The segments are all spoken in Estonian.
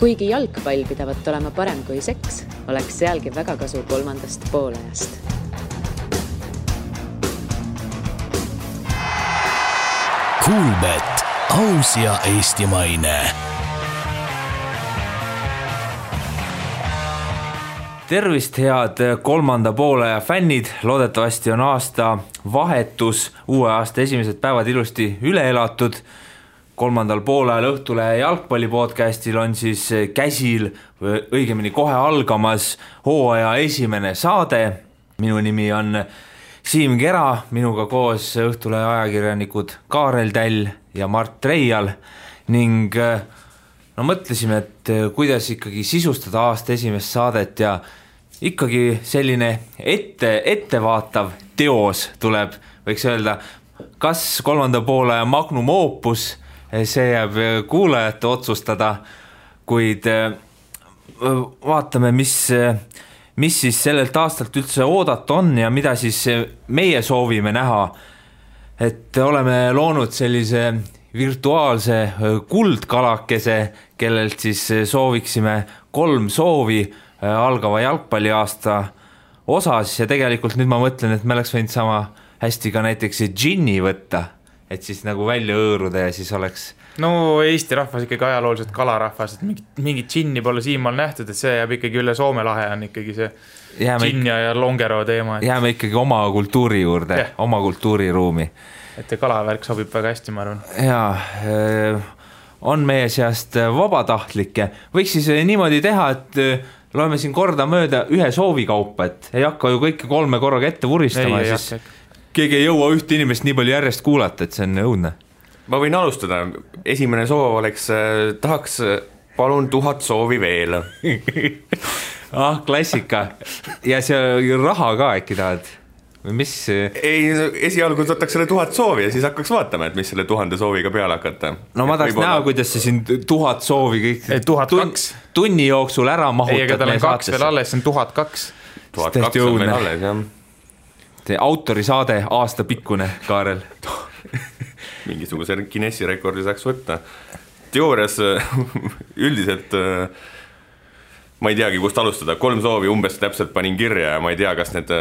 Kuigi jalgpall pidavat olema parem kui seks, oleks sealgi väga kasu kolmandast poolajast. Kuulbet, aus ja eestimaine. Tervist, head kolmanda poolaja fännid, loodetavasti on aasta vahetus, uue aasta esimesed päevad ilusti üle elatud. Kolmandal poolajal Õhtulehe jalgpallipodcastil on siis käsil, õigemini kohe algamas hooaja esimene saade. Minu nimi on Siim Kera, minuga koos Õhtulehe ajakirjanikud Kaarel Täll ja Mart Reial ning mõtlesime, et kuidas ikkagi sisustada aasta esimest saadet ja ikkagi selline ettevaatav teos tuleb, võiks öelda, kas kolmanda poolaja magnum opus, see jääb kuulajate otsustada, kuid vaatame, mis siis sellelt aastalt üldse oodata on ja mida siis meie soovime näha. Et oleme loonud sellise virtuaalse kuldkalakese, kellelt siis sooviksime 3 soovi algava jalgpalliaasta osas ja tegelikult nüüd ma mõtlen, et me oleks võinud sama hästi ka näiteks džinni võtta, et siis nagu välja õõruda ja siis oleks... No Eesti rahvas ikkagi ajalooliselt kalarahvas, et mingit džinni pole siimaal nähtud, et see jääb ikkagi üle Soome lahe on ikkagi see džinn ja longero teema. Jääme ikkagi oma kultuuri juurde, oma kultuuriruumi. Et see kalavärk sobib väga hästi, ma arvan. Jaa, on meie seast vabatahtlikke. Võiks siis niimoodi teha, et loeme siin korda mööda ühe soovikaupa, et ei hakka ju kõike 3 korraga ette vuristama ja siis keegi ei jõua ühte inimest nii palju järjest kuulata, et see on õudne. Ma võin alustada. Esimene soov oleks, tahaks palun 1000 soovi veel. Klassika. Ja see raha ka äkki tahad? Mis? Ei, esialgu võtaks selle 1000 soovi ja siis hakkaks vaatama, et mis selle 1000 sooviga peale hakata. No ma tahaks näha, kuidas see siin 1000 soovi kõik 1002 tunni jooksul ära mahutad. Ei, aga tal on 2 veel alles, see on 1002. 1002 on veel alles, jah. See autorisaade aasta pikkune, Kaarel. Mingisuguse Guinessi rekordi saaks võtta. Teoorias üldiselt ma ei teagi, kust alustada. 3 soovi umbes täpselt panin kirja ja ma ei tea, kas need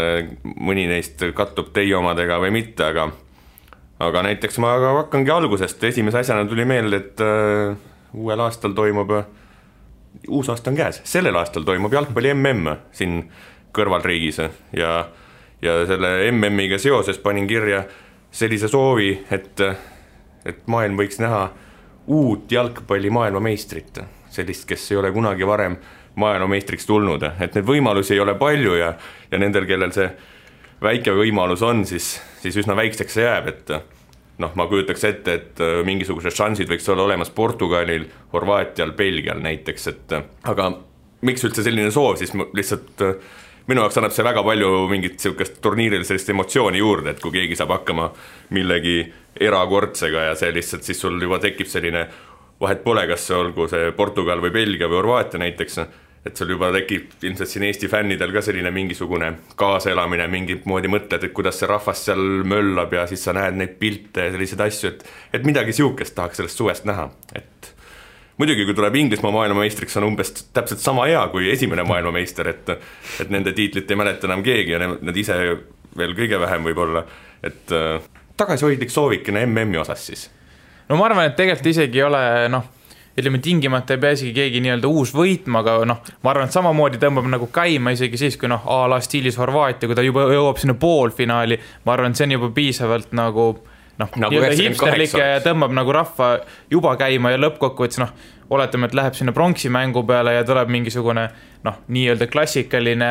mõni neist kattub teie omadega või mitte, aga näiteks ma hakkangi algusest. Esimese asjana tuli meelde, et uuel aastal toimub, uus aasta on käes, sellel aastal toimub jalgpalli MM siin kõrvalriigis ja selle MM-iga seoses panin kirja sellise soovi, et maailm võiks näha uut jalgpalli maailmameistrit, sellist, kes ei ole kunagi varem maailmameistriks tulnud, et need võimalusi ei ole palju ja nendel, kellel see väike võimalus on, siis üsna väikseks see jääb, et ma kujutaks ette, et mingisugused šansid võiks olla olemas Portugalil, Horvaatial, Belgial näiteks, aga miks üldse selline soov, siis lihtsalt minu jaoks annab see väga palju mingit sellist turniiril sellist emotsiooni juurde, et kui keegi saab hakkama millegi erakordsega ja see lihtsalt siis sul juba tekib selline vahet pole, kas see olgu see Portugal või Belgia või Horvaatia näiteks, et sul juba tekib ilmselt siin Eesti fännidel ka selline mingisugune kaasaelamine, mingit moodi mõtled, et kuidas see rahvas seal möllab ja siis sa näed neid pilte ja selliseid asju, et midagi siukest tahaks sellest suvest näha, et muidugi, kui tuleb Inglismaa maailmameistriks, on umbes täpselt sama hea kui esimene maailmameister, et nende tiitlit ei mäleta enam keegi ja nad ise veel kõige vähem võib-olla, et tagasihoidlik soovikene MM-i osas siis. No ma arvan, et tegelikult isegi ei ole, ütleme tingimata ei pea isegi keegi nii-öelda uus võitma, aga ma arvan, et samamoodi tõmbab nagu käima isegi siis, kui a la stiilis Horvaatia, kui ta juba jõuab sinna poolfinaali, ma arvan, et see on juba piisavalt nagu hipsterlik ja tõmbab nagu rahva juba käima ja lõppkokkuvõttes oletame, et läheb sinna pronksimängu peale ja tuleb mingisugune nii-öelda klassikaline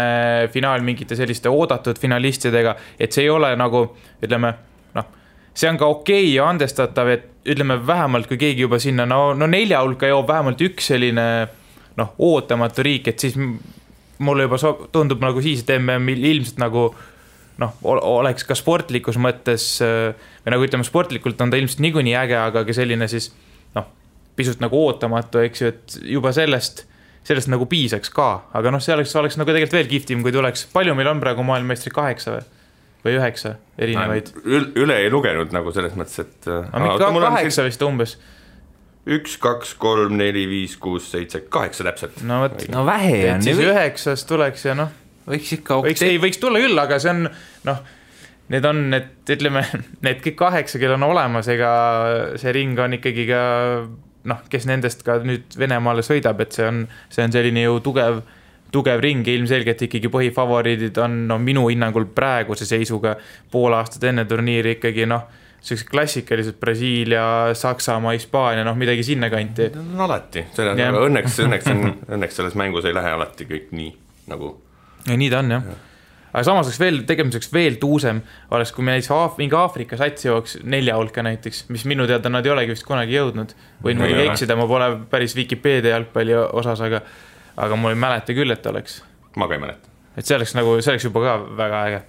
finaal mingite selliste oodatud finalistidega, et see ei ole nagu, ütleme, see on ka okei ja andestatav, et ütleme vähemalt, kui keegi juba sinna 4 hulka jõuab vähemalt üks selline ootamatu riik, et siis mulle juba tundub nagu siis, et MM ilmselt nagu oleks ka sportlikus mõttes või nagu ütleme, sportlikult on ta ilmselt niikuinii äge, aga ka selline siis pisut nagu ootamatu, eks ju, et juba sellest nagu piisaks ka, aga see oleks nagu tegelikult veel kihvtim, kui tuleks, palju meil on praegu maailmameistri 8 või 9 erinevaid? Üle ei lugenud nagu selles mõttes, et... Aga 8 vist umbes. 1, 2, 3, 4, 5, 6, 7, 8 täpselt. No võt, no vähe on. siis 9 tuleks ja noh. Võiks ikka võiks tulla küll, aga see on, noh, need on, ütleme, need kõik 8, kel on olemas, ega see ring on ikkagi ka, noh, kes nendest ka nüüd Venemaale sõidab, et see on selline ju tugev ring ja ilmselgelt ikkagi põhifavoriidid on minu hinnangul praeguse seisuga pool aastat enne turniiri ikkagi sellised klassikalised Brasiilia, Saksamaa, Hispaania, midagi sinna kanti. No alati, õnneks selles mängus ei lähe alati kõik nii nagu. Ja nii ta on jah. Aga samas tegemiseks veel tuusem oleks, kui me näiteks mingi Aafrika sats jooks 4 hulka näiteks, mis minu teada nad ei olegi vist kunagi jõudnud. Võin muidugi eksida, ma pole päris Wikipedia jalgpalli osas, aga mul ei mäleta küll, et oleks. Ma ka ei mäleta. Et see oleks juba ka väga äge.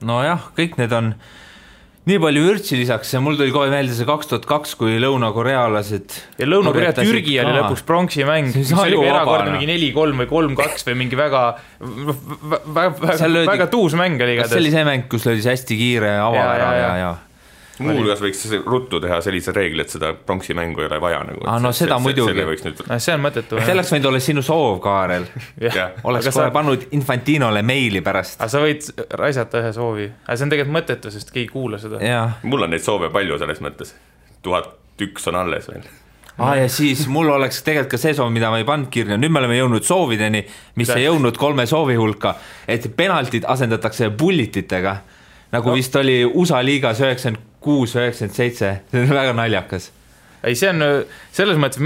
No jah, kõik need on nii palju vürtsi lisaks ja mul tuli kohe meelde see 2002, kui Lõuna-Korealased ja Lõuna-Korea Türgi oli lõpuks pronksi mäng, mis oli erakordne mingi 4-3 või 3-2 või mingi väga tuus mäng oli igatahes. See oli see mäng, kus oli see hästi kiire avavera ja Muuhulgas võiks ruttu teha sellise reegli, et seda pronksi mängu ei ole vaja nagu. No seda muidugi. See on mõttetu. Selleks võinud olla sinu soov, Kaarel. Oleks kohe pannud Infantinole meili pärast. Aga sa võid raisata ühe soovi. Aga see on tegelikult mõttetu, sest keegi kuula seda. Mul on neid soove palju selles mõttes. 1001 on alles veel. Ja siis mul oleks tegelikult ka see soov, mida ma ei pannud kirja. Nüüd me oleme jõudnud soovideni, mis ei jõudnud 3 soovi hulka, et penaltid asendatakse bullititega. Nagu vist oli USA liigas 96-97, see on väga naljakas. Ei, see on selles mõttes,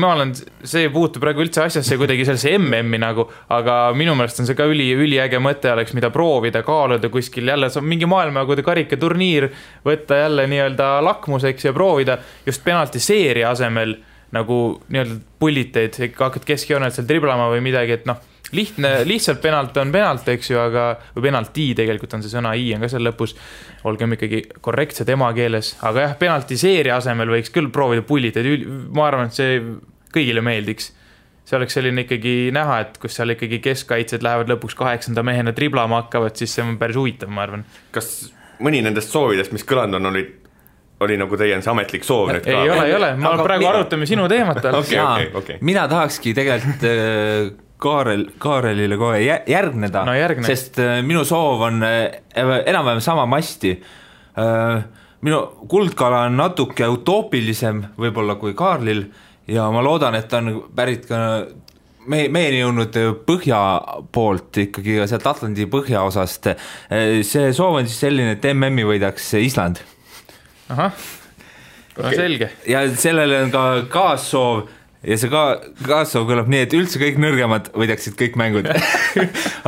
see puutub praegu üldse asjasse kuidagi sellesse MM-i nagu, aga minu meelest on see ka üliäge mõte oleks, mida proovida, kaaluda kuskil jälle, mingi maailmajagude karikaturniir, võtta jälle nii-öelda lakmuseks ja proovida just penaltiseeria asemel nagu nii-öelda pulliteid, hakkad keskjoonelt seal driblama või midagi, et lihtsalt penalt on penalt, eks ju, või penalti tegelikult on see sõna, I on ka seal lõpus, olgem ikkagi korrektsed emakeeles, aga jah, penaltiseeria asemel võiks küll proovida pulliteid, ma arvan, et see kõigile meeldiks. See oleks selline ikkagi näha, et kus seal ikkagi keskkaitsed lähevad lõpuks 8. mehena driblama hakkavad, siis see on päris huvitav, ma arvan. Kas mõni nendest soovidest, mis kõlanud on, oli nagu teie see ametlik soov nüüd ka? Ei ole, ma praegu arutame sinu teemat. Okay. Mina tahakski tegelikult Kaarelile kohe järgneda, sest minu soov on enam-vähem sama masti. Minu kuldkala on natuke utoopilisem võib-olla kui Kaarlil ja ma loodan, et on pärit ka meieni jõudnud põhja poolt ikkagi sealt Atlandi põhjaosast. See soov on siis selline, et MM-i võidaks Island. Ahah, selge. Ja sellele on ka kaassoov ja see kaassoov kõlab nii, et üldse kõik nõrgemad võidaksid kõik mängud.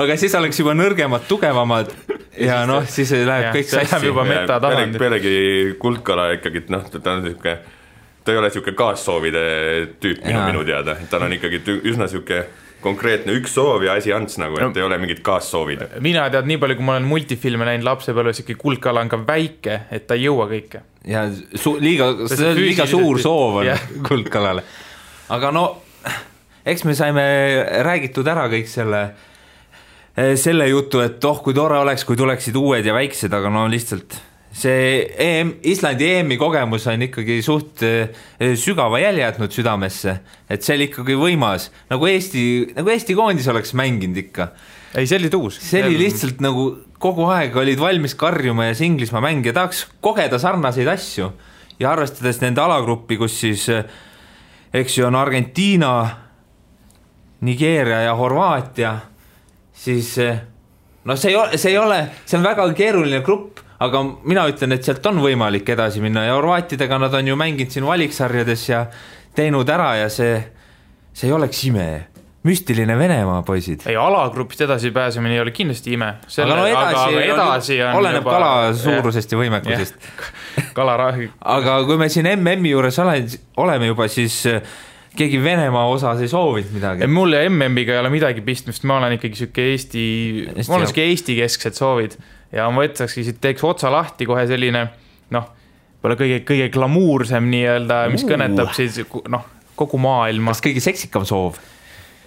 Aga siis oleks juba nõrgemad, tugevamad ja siis läheb kõik sassi. See läheb juba meta tasandil. Pealegi kuldkala ikkagi, ta ei ole siuke kaassoovide tüüp minu teada. Ta on ikkagi üsna siuke konkreetne üks soov ja asi ants nagu, et ei ole mingit kaassoovid. Mina tead nii palju, kui ma olen multifilme näinud lapsepõlves, ikka kuldkala on ka väike, et ta ei jõua kõike. Ja liiga suur soov on kuldkalale. Aga eks me saime räägitud ära kõik selle jutu, et kui tore oleks, kui tuleksid uued ja väiksed, aga lihtsalt see Islandi EM-i kogemus on ikkagi suht sügava jälje jätnud südamesse, et see oli ikkagi võimas, nagu Eesti koondis oleks mänginud ikka. Ei, see oli tuus. See oli lihtsalt nagu kogu aeg olid valmis karjuma ja see Inglismaa mäng ja tahaks kogeda sarnaseid asju ja arvestades nende alagruppi, kus siis eks ju on Argentiina, Nigeeria ja Horvaatia, siis see on väga keeruline grupp, aga mina ütlen, et sealt on võimalik edasi minna ja Horvaatidega nad on ju mänginud siin valiksarjades ja teinud ära ja see ei oleks ime. Müstiline Venemaa, poisid. Ei, alagrupist edasi pääsemine ei ole kindlasti ime. Aga edasi on oleneb juba kala suurusest ja võimekusest. Aga kui me siin MM-i juures oleme juba, siis keegi Venemaa osas ei soovinud midagi. Mul ja MM-iga ei ole midagi pistmist, ma olen ikkagi siuke Eesti kesksed soovid ja ma võtsakski siit teeks otsa lahti kohe selline pole kõige glamuursem nii-öelda, mis kõnetab siis kogu maailma. Kas kõige seksikam soov?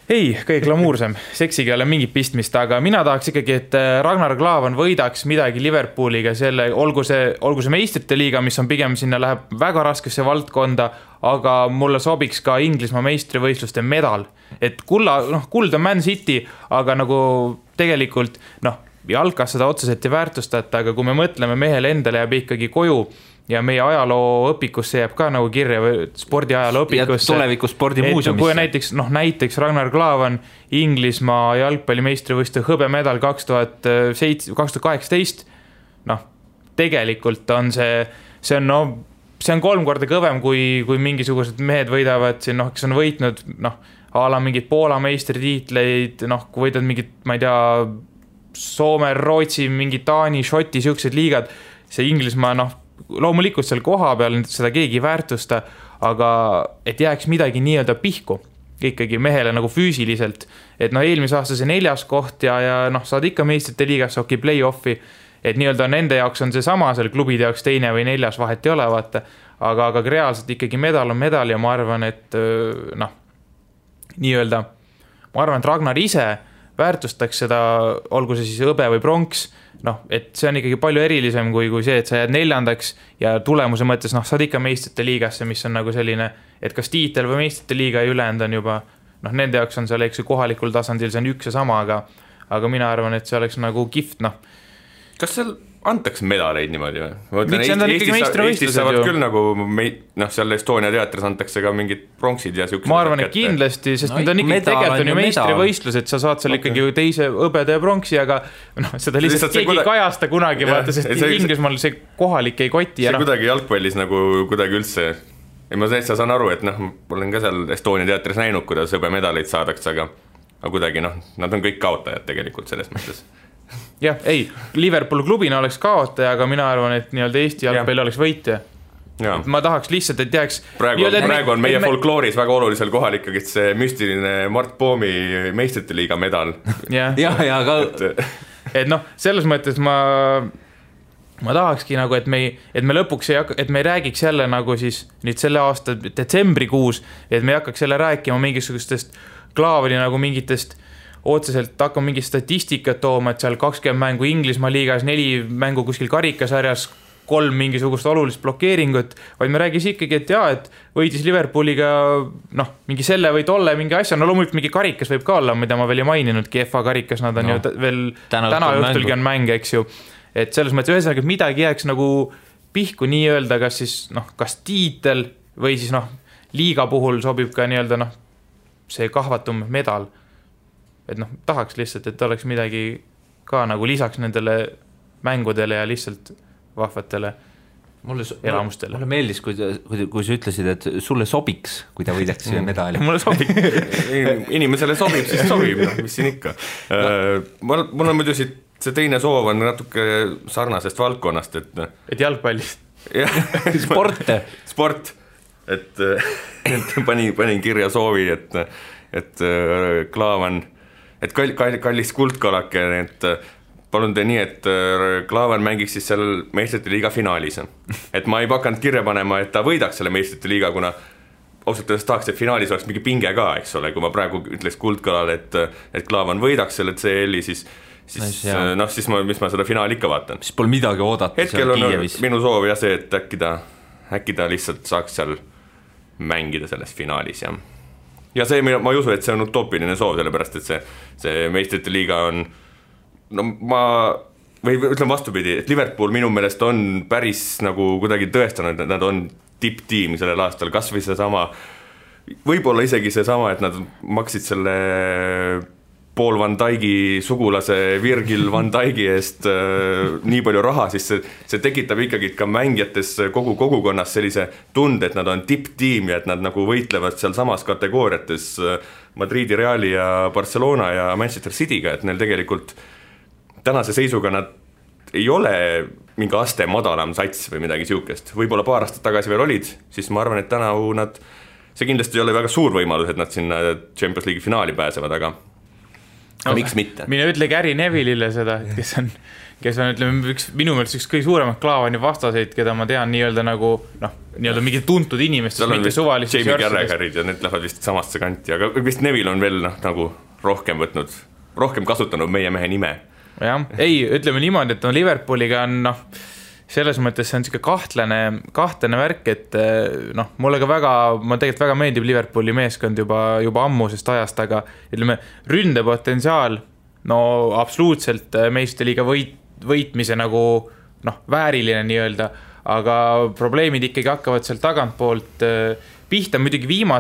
Ei, kõige glamuursem, seksiga ei ole mingit pistmist, aga mina tahaks ikkagi, et Ragnar Klavan võidaks midagi Liverpooliga, olgu see meistrite liiga, mis on pigem sinna läheb väga raskesse valdkonda, aga mulle sobiks ka Inglismaa meistrivõistluste medal, et kuld on Man City, aga nagu tegelikult jalkas seda otseselt ei väärtustata, aga kui me mõtleme mehele endale jääb ikkagi koju ja meie ajaloo õpikusse jääb ka nagu kirja või spordiajaloo õpikusse. Ja tuleviku spordimuuseumisse. Kui näiteks Ragnar Klavan Inglismaa jalgpallimeistrivõistluste hõbemedal 2018, tegelikult on see on 3 korda kõvem, kui mingisugused mehed võidavad siin, kes on võitnud, a la mingid Poola meistritiitleid, kui võidad mingid, ma ei tea, Soome, Rootsi, mingi Taani, Šoti, siuksed liigad, see Inglismaa, loomulikult seal koha peal seda keegi ei väärtusta, aga et jääks midagi nii-öelda pihku ikkagi mehele nagu füüsiliselt, et eelmise aasta see 4. koht ja saad ikka meistrite liigasse play-offi, et nii-öelda nende jaoks on see sama, seal klubide jaoks 2. või 4. vahet ei ole, vaata, aga reaalselt ikkagi medal on medal ja ma arvan, et nii-öelda, ma arvan, et Ragnar ise väärtustaks seda, olgu see siis hõbe või pronks, et see on ikkagi palju erilisem kui see, et sa jääd 4. ja tulemuse mõttes, saad ikka meistrite liigasse, mis on nagu selline, et kas tiitel või meistrite liiga ja ülejäänud on juba, nende jaoks on seal kohalikul tasandil, see on üks ja sama, aga mina arvan, et see oleks nagu kihvt, Kas seal antakse medaleid niimoodi või? Eestis saavad küll nagu seal Estonia teatris antakse ka mingid pronksid ja siuksed. Ma arvan, et kindlasti, sest need on ikkagi tegelikult on ju meistrivõistlus, et sa saad seal ikkagi teise hõbeda ja pronksi, aga seda lihtsalt keegi kajasta kunagi, vaata, sest Inglismaal see kohalik ei koti. See kuidagi jalgpallis nagu kuidagi üldse, ma täitsa saan aru, et ma olen ka seal Estonia teatris näinud, kuidas hõbemedaleid saadakse, aga kuidagi nad on kõik kaotajad tegelikult selles mõttes. Jah, ei, Liverpool klubina oleks kaotaja, aga mina arvan, et nii-öelda Eesti jalgpalli oleks võitja. Ma tahaks lihtsalt, et jääks... Praegu on meie folklooris väga olulisel kohal ikkagi see müstiline Mart Poomi meistrite liiga medal. aga... Et selles mõttes ma tahakski nagu, et me lõpuks et me ei räägiks jälle nagu siis nüüd selle aasta detsembrikuus, et me ei hakkaks jälle rääkima mingisugustest Klaavani nagu mingitest otseselt hakkame mingi statistikat tooma, et seal 20 mängu Inglismaa liigas, 4 mängu kuskil karikasarjas, 3 mingisugust olulist blokeeringut, vaid me räägis ikkagi, et et võitis Liverpooliga mingi selle või tolle mingi asja, loomulikult mingi karikas võib ka olla, mida ma veel ei maininudki, FA karikas, nad on ju veel täna õhtulgi on mäng, eks ju, et selles mõttes ühesõnaga, et midagi jääks nagu pihku nii-öelda, kas siis kas tiitel või siis liiga puhul sobib ka nii-öelda see kahvatum medal. Et tahaks lihtsalt, et oleks midagi ka nagu lisaks nendele mängudele ja lihtsalt vahvatele elamustele. Mulle meeldis, kui sa ütlesid, et sulle sobiks, kui ta võidaks medali. Mulle sobib. Inimesele sobib, siis sobib, mis siin ikka. Mul on muidu see teine soov on natuke sarnasest valdkonnast, et jalgpallist. Sport. Et panin kirja soovi, et Klaavan, et kallis kuldkalake, et palun tee nii, et Klaavan mängiks siis seal meistrite liiga finaalis. Et ma ei pakanud kirja panema, et ta võidaks selle meistrite liiga, kuna ausalt öeldes tahaks, et finaalis oleks mingi pinge ka, eks ole, kui ma praegu ütleks kuldkalale, et Klaavan võidaks selle CL-i, siis mis ma seda finaali ikka vaatan. Siis pole midagi oodata. Hetkel on minu soov ja see, et äkki ta lihtsalt saaks seal mängida selles finaalis ja see, ma ei usu, et see on utoopiline soov, sellepärast, et see meistrite liiga on, või ütlen vastupidi, et Liverpool minu meelest on päris nagu kuidagi tõestanud, et nad on tipptiim sellel aastal, kas või see sama, võib-olla isegi see sama, et nad maksid selle Paul Van Dijk'i sugulase Virgil Van Dijk'i eest nii palju raha, siis see tekitab ikkagi ka mängijates kogu kogukonnas sellise tunde, et nad on tipptiim ja et nad nagu võitlevad seal samas kategooriates Madridi Reali ja Barcelona ja Manchester City'ga, et neil tegelikult tänase seisuga nad ei ole mingi aste madalam sats või midagi siukest. Võib-olla paar aastat tagasi veel olid, siis ma arvan, et tänavu see kindlasti ei ole väga suur võimalus, et nad sinna Champions League'i finaali pääsevad, aga miks mitte? Mine ütle Gary Neville'ile seda, kes on ütleme, minu meelest üks kõige suuremat Klaavani vastaseid, keda ma tean nii-öelda nagu, nii-öelda mingi tuntud inimestest, mitte suvalistest Jamie Carragherid ja need lähevad vist samasse kanti, aga vist Neville on veel nagu rohkem kasutanud meie mehe nime. Jah, ei, ütleme niimoodi, et Liverpooliga on selles mõttes see on siuke kahtlane värk, et noh, mulle ka ma tegelikult väga meeldib Liverpooli meeskond juba ammusest ajast, aga ütleme, ründepotentsiaal, no absoluutselt meistriliiga võitmise nagu noh, vääriline nii-öelda, aga probleemid ikkagi hakkavad seal tagantpoolt pihta, muidugi viimane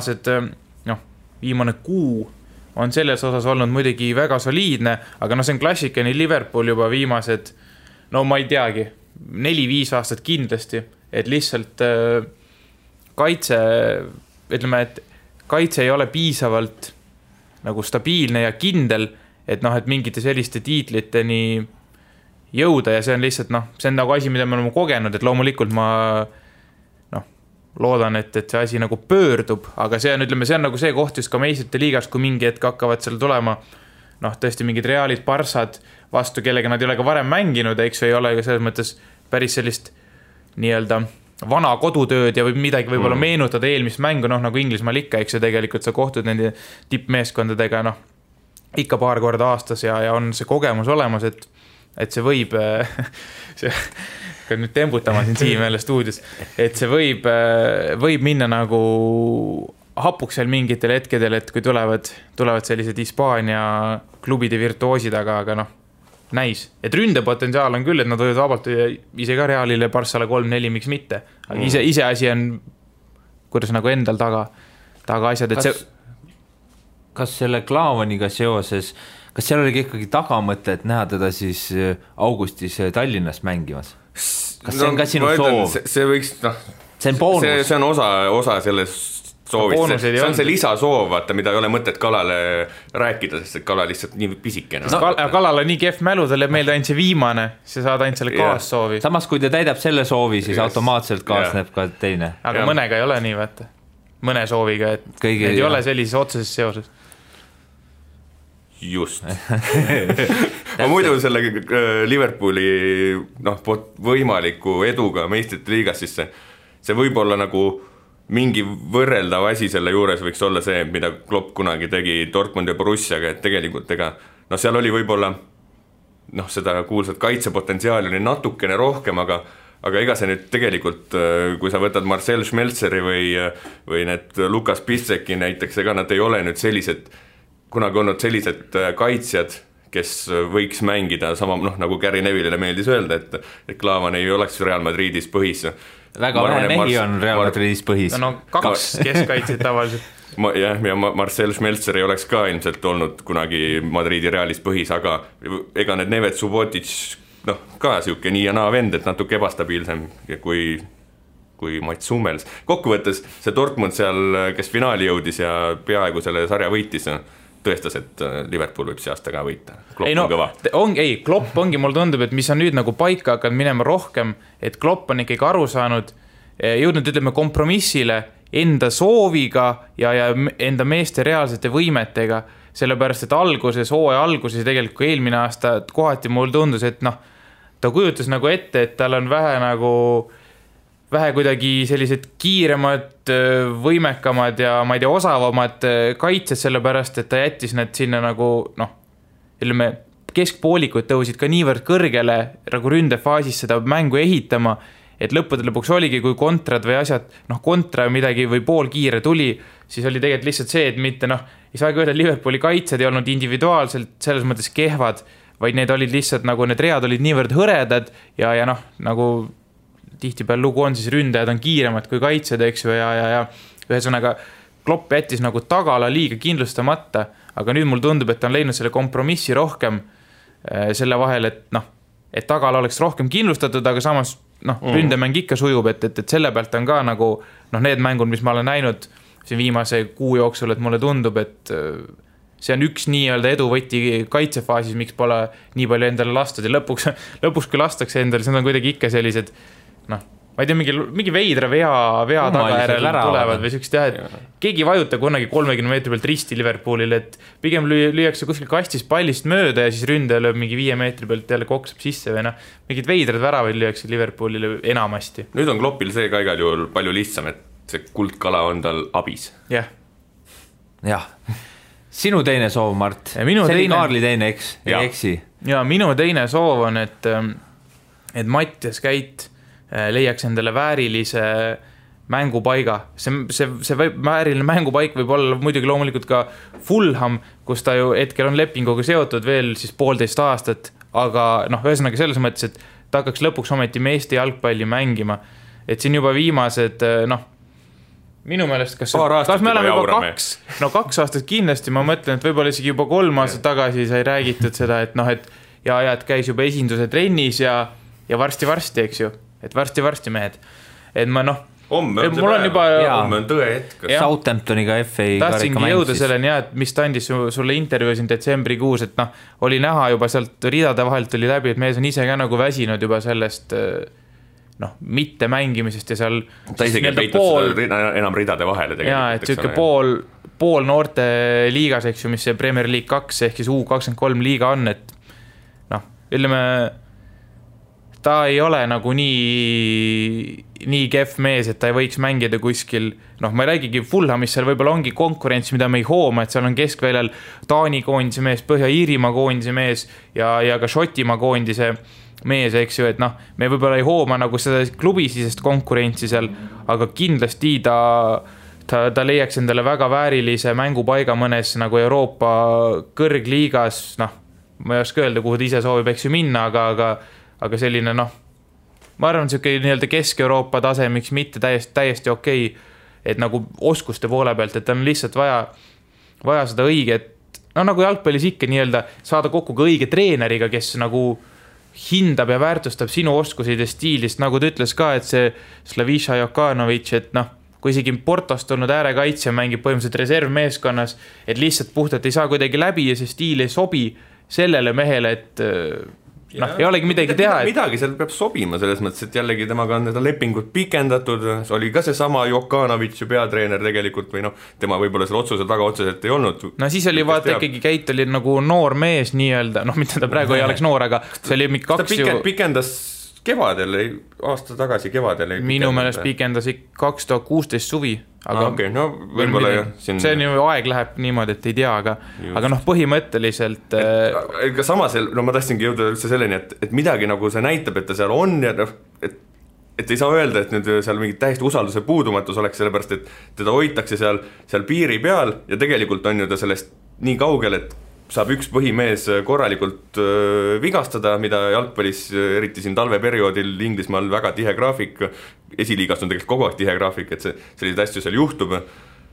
kuu on selles osas olnud muidugi väga soliidne, aga no see on klassikani Liverpool juba viimased, no ma ei teagi, 4-5 aastat kindlasti, et lihtsalt kaitse ei ole piisavalt nagu stabiilne ja kindel, et noh, et mingite selliste tiitliteni jõuda ja see on lihtsalt noh, see on nagu asi, mida me oleme kogenud, et loomulikult ma loodan, et see asi nagu pöördub, aga see on, ütleme, see on nagu see koht just ka meistrite liigas, kui mingi hetk hakkavad seal tulema noh, tõesti mingid Realid, Barssad vastu, kellega nad ei ole ka varem mänginud, eks ei ole selles mõttes päris sellist nii-öelda vana kodutööd ja võib midagi võib-olla meenutada eelmist mängu, noh nagu Inglismaal ikka, eks ju tegelikult sa kohtud nende tippmeeskondadega noh, ikka paar korda aastas ja on see kogemus olemas, et see võib nüüd tembutama siin Siim jälle stuudios, et see võib minna nagu hapuks seal mingitel hetkedel, et kui tulevad sellised Hispaania klubide virtuoosid, aga noh, näis. Et ründepotentsiaal on küll, et nad võivad vabalt ise ka Realile, Barssale 3-4, miks mitte. Aga ise asi on, kuidas nagu endal taga asjad, et Kas selle Klaavaniga seoses, kas seal oligi ikkagi tagamõte, et näha teda siis augustis Tallinnas mängimas? Kas see on ka sinu soov? See võiks, noh, see on boonus. See on osa sellest soovist. See on see lisasoov, vaata, mida ei ole mõtet Kalale rääkida, sest Kala lihtsalt nii pisikene. Kalal on nii kehv mälu, talle meelde ainult see viimane, sa saad ainult selle kaassoovi. Samas, kui ta täidab selle soovi, siis automaatselt kaasneb ka teine. Aga mõnega ei ole nii, vaata. Mõne sooviga, et need ei ole sellises otseses seoses. Just. Ma muidu selle Liverpooli võimaliku eduga meistrite liigas, siis see võib olla nagu mingi võrreldav asi selle juures võiks olla see, mida Klopp kunagi tegi Dortmund ja Borussiaga, et tegelikult seal oli võib-olla seda kuulsat kaitsepotentsiaali oli natukene rohkem, aga ega see nüüd tegelikult, kui sa võtad Marcel Schmelzeri või need Lukas Piszczeki näiteks, ega nad ei ole nüüd kunagi olnud sellised kaitsjad, kes võiks mängida sama, nagu Gary Neville'ile meeldis öelda, et Klaavan ei oleks Real Madridis põhis. Väga vähe mehi on Real Madridis põhis. No 2 keskkaitsid tavaliselt. Ja Marcel Schmelzer ei oleks ka ilmselt olnud kunagi Madridi Realis põhis, aga ega need Nevet Subotic ka siuke nii ja naa vend, et natuke ebastabiilsem kui Mats Hummels. Kokkuvõttes see Dortmund seal, kes finaali jõudis ja peaaegu selle sarja võitis, tõestas, et Liverpool võib see aasta ka võita. Klopp on kõva. Klopp ongi, mul tundub, et mis on nüüd nagu paika hakanud minema rohkem, et Klopp on ikkagi aru saanud, jõudnud, ütleme, kompromissile enda sooviga ja enda meeste reaalsete võimetega, sellepärast, et hooaja alguses tegelikult kui eelmine aasta kohati mul tundus, et ta kujutas nagu ette, et tal on vähe kuidagi sellised kiiremad, võimekamad ja ma ei tea, osavamad kaitsed, sellepärast, et ta jättis need sinna nagu, ütleme, keskpoolikud tõusid ka niivõrd kõrgele nagu ründefaasis seda mängu ehitama, et lõpuks oligi, kui kontrad või asjad, kontra midagi või poolkiire tuli, siis oli tegelikult lihtsalt see, et mitte, ei saagi öelda, Liverpooli kaitsed ei olnud individuaalselt selles mõttes kehvad, vaid need olid lihtsalt nagu, need read olid niivõrd hõredad ja nagu tihtipeal lugu on, siis ründajad on kiiremad kui kaitsed, eks ju, ja ühesõnaga Klopp jättis nagu tagala liiga kindlustamata, aga nüüd mul tundub, et ta on leidnud selle kompromissi rohkem selle vahel, et tagala oleks rohkem kindlustatud, aga samas ründemäng ikka sujub, et selle pealt on ka nagu need mängud, mis ma olen näinud siin viimase kuu jooksul, et mulle tundub, et see on üks nii-öelda eduvõti kaitsefaasis, miks pole nii palju endale lastud ja lõpuks kui lastakse endale, see on kuidagi ikka sellised ma ei tea, mingi veidra vea tagajärel tulevad või sükst jah, et keegi ei vajuta kunagi 30 meetri pealt risti Liverpoolile, et pigem lüüakse kuskil kastis pallist mööda ja siis ründaja lööb mingi 5 meetri pealt jälle koksab sisse või mingid veidrad väravaid lüüakse Liverpoolile enamasti. Nüüd on Kloppil see ka igal juhul palju lihtsam, et see kuldkala on tal abis. Jah. Sinu teine soov, Mart. See oli Kaarli teine, eks? Ei eksi. Ja minu teine soov on, et Mattias Käit leiaks endale väärilise mängupaiga. See vääriline mängupaik võib olla muidugi loomulikult ka Fulham, kus ta ju hetkel on lepinguga seotud veel siis 1,5 aastat, aga ühesõnaga selles mõttes, et ta hakkaks lõpuks ometi meeste jalgpalli mängima. Et siin juba viimased, minu meelest, kas me oleme juba 2 aastat kindlasti, ma mõtlen, et võib-olla isegi juba 3 aastat tagasi sai räägitud seda, et et käis juba esinduse trennis ja varsti, eks ju, et varsti mehed. Et ma homme on tõe hetk. Southamptoniga FA tahtsingi jõuda selleni, et mis ta andis sulle intervjuu siin detsembrikuus, et oli näha juba sealt ridade vahelt tuli läbi, et mees on ise ka nagu väsinud juba sellest mitte mängimisest ja seal ta isegi peitud enam ridade vahele tegelikult. Jaa, et siuke pool noorte liigas, eks ju, mis see Premier League 2 ehk siis U23 liiga on, et ütleme ta ei ole nagu nii kehv mees, et ta ei võiks mängida kuskil, ma ei räägigi Fulhamis, seal võib-olla ongi konkurents, mida me ei hooma, et seal on keskväljal Taani koondise mees, Põhja-Iirimaa koondise mees ja ka Šotimaa koondise mees, eks ju, et me võib-olla ei hooma nagu seda klubisisest konkurentsi seal, aga kindlasti ta leiaks endale väga väärilise mängupaiga mõnes nagu Euroopa kõrgliigas, ma ei oska öelda, kuhu ta ise soovib, eks ju minna, aga selline ma arvan, siuke nii-öelda Kesk-Euroopa tase, miks mitte täiesti okei, et nagu oskuste poole pealt, et on lihtsalt vaja seda õiget, nagu jalgpallis ikka nii-öelda saada kokku ka õige treeneriga, kes nagu hindab ja väärtustab sinu oskusid ja stiilist, nagu ta ütles ka, et see Slaviša Jokanović, et kui isegi Portost olnud äärekaitsja mängib põhimõtteliselt reservmeeskonnas, et lihtsalt puhtalt ei saa kuidagi läbi ja see stiil ei sobi sellele mehele, et ei olegi midagi teha. Midagi seal peab sobima selles mõttes, et jällegi temaga on need lepingud pikendatud, see oli ka see sama Jokanović ju peatreener tegelikult või tema võib-olla selle otsuse taga otseselt ei olnud. Siis oli vaata ikkagi Keit oli nagu noor mees nii-öelda, mida ta praegu ei oleks noor, aga see oli kaks ta pikendas kevadel, aasta tagasi kevadel minu meelest pikendas 2016 suvi, aga okay, võib-olla jah see on ju aeg läheb niimoodi, et ei tea, aga põhimõtteliselt ka samas, ma tahtsingi jõuda üldse selleni, et midagi nagu see näitab, et ta seal on ja et ei saa öelda, et nüüd seal mingit täiesti usalduse puudumatus oleks, sellepärast, et teda hoitakse seal piiri peal ja tegelikult on ju ta sellest nii kaugel, et saab üks põhimees korralikult vigastada, mida jalgpallis, eriti siin talveperioodil Inglismaal väga tihe graafik, esiliigast on tegelikult kogu aeg tihe graafik, et selliseid asju seal juhtub,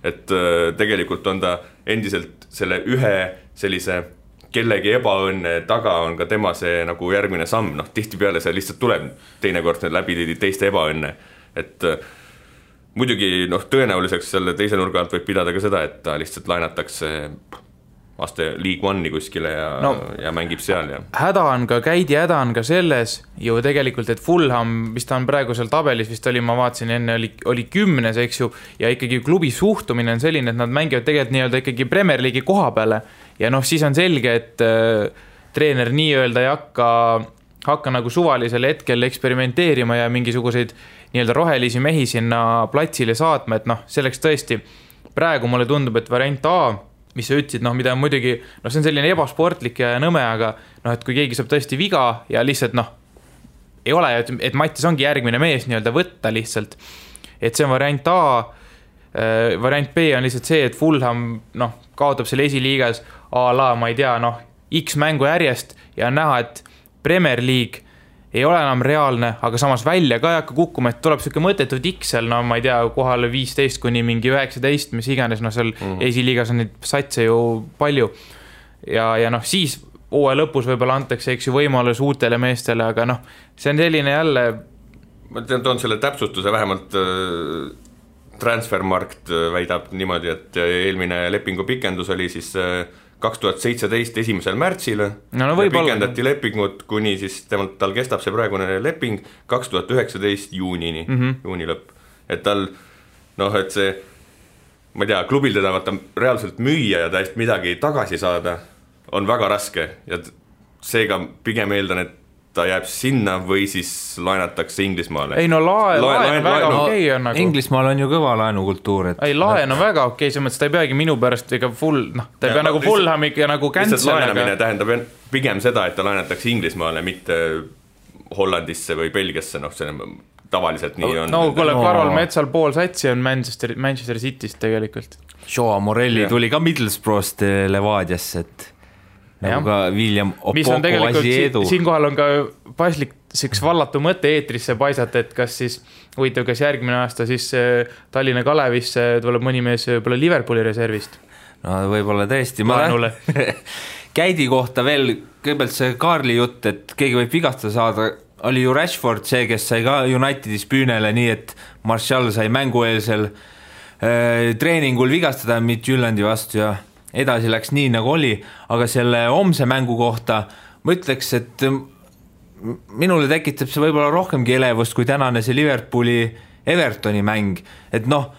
et tegelikult on ta endiselt selle ühe sellise kellegi ebaõnne taga on ka tema see nagu järgmine samm, tihtipeale see lihtsalt tuleb teinekord läbi teiste ebaõnne, et muidugi tõenäoliseks selle teise nurga alt võib pidada ka seda, et ta lihtsalt laenatakse aste League One'i kuskile ja mängib seal. Häda on ka selles ju tegelikult, et Fulham, mis ta on praegu seal tabelis vist oli, ma vaatasin enne, oli 10, eks ju, ja ikkagi klubi suhtumine on selline, et nad mängivad tegelikult nii-öelda ikkagi Premier League'i koha peale ja siis on selge, et treener nii-öelda ei hakka nagu suvalisel hetkel eksperimenteerima ja mingisuguseid nii-öelda rohelisi mehi sinna platsile saatma, et selleks tõesti praegu mulle tundub, et variant A, mis sa ütlesid, mida on muidugi, see on selline ebasportlik ja nõme, aga et kui keegi saab tõesti viga ja lihtsalt ei ole, et Mattis ongi järgmine mees nii-öelda võtta lihtsalt, et see on variant A, variant B on lihtsalt see, et Fulham kaotab selle esiliigas a la, ma ei tea, X mängu järjest ja on näha, et Premier League ei ole enam reaalne, aga samas välja ka ei hakka kukkuma, et tuleb selline mõttetud X seal, ma ei tea, kohale 15 kuni mingi 19, mis iganes, seal esiliigas on neid satse ju palju ja siis hooaja lõpus võib-olla antakse, eks ju, võimalus uutele meestele, aga see on selline jälle ma toon selle täpsustuse, vähemalt Transfermarkt väidab niimoodi, et eelmine lepingu pikendus oli siis 2017 1. märtsil pikendati lepingut kuni siis tal kestab see praegune leping 2019 juunini, juuni lõpp, et tal et see, ma ei tea, klubil teda vaata reaalselt müüa ja täiesti midagi tagasi saada on väga raske ja seega pigem eeldan, et ta jääb sinna või siis laenatakse Inglismaale. Ei laen väga okei on nagu. Inglismaal on ju kõva laenukultuur. Ei laen on väga okei, see mõttes ta ei peagi minu pärast ega ta ei pea nagu Fulhamiga nagu cancel. Lihtsalt laenamine tähendab pigem seda, et ta laenatakse Inglismaale, mitte Hollandisse või Belgiasse, tavaliselt nii on. No kuule, Karol Metsal pool satsi on Manchester Cityst tegelikult. Joao Morelli tuli ka Middlesbrough'st Levadiasse, et nagu ka William Opoko Asiedu. Siinkohal on ka paslik üks vallatu mõte eetrisse paisata, et kas siis huvitav, kas järgmine aasta siis Tallinna Kalevisse tuleb mõni mees võib-olla Liverpooli reservist. No võib-olla tõesti. Käidi kohta veel, kõigepealt see Kaarli jutt, et keegi võib vigastada saada, oli ju Rashford see, kes sai ka Unitedis püünele, nii et Martial sai mängueelsel treeningul vigastada Midtjylandi vastu ja edasi läks nii nagu oli, aga selle homse mängu kohta ma ütleks, et minule tekitab see võib-olla rohkemgi elevust kui tänane see Liverpooli Evertoni mäng, et noh,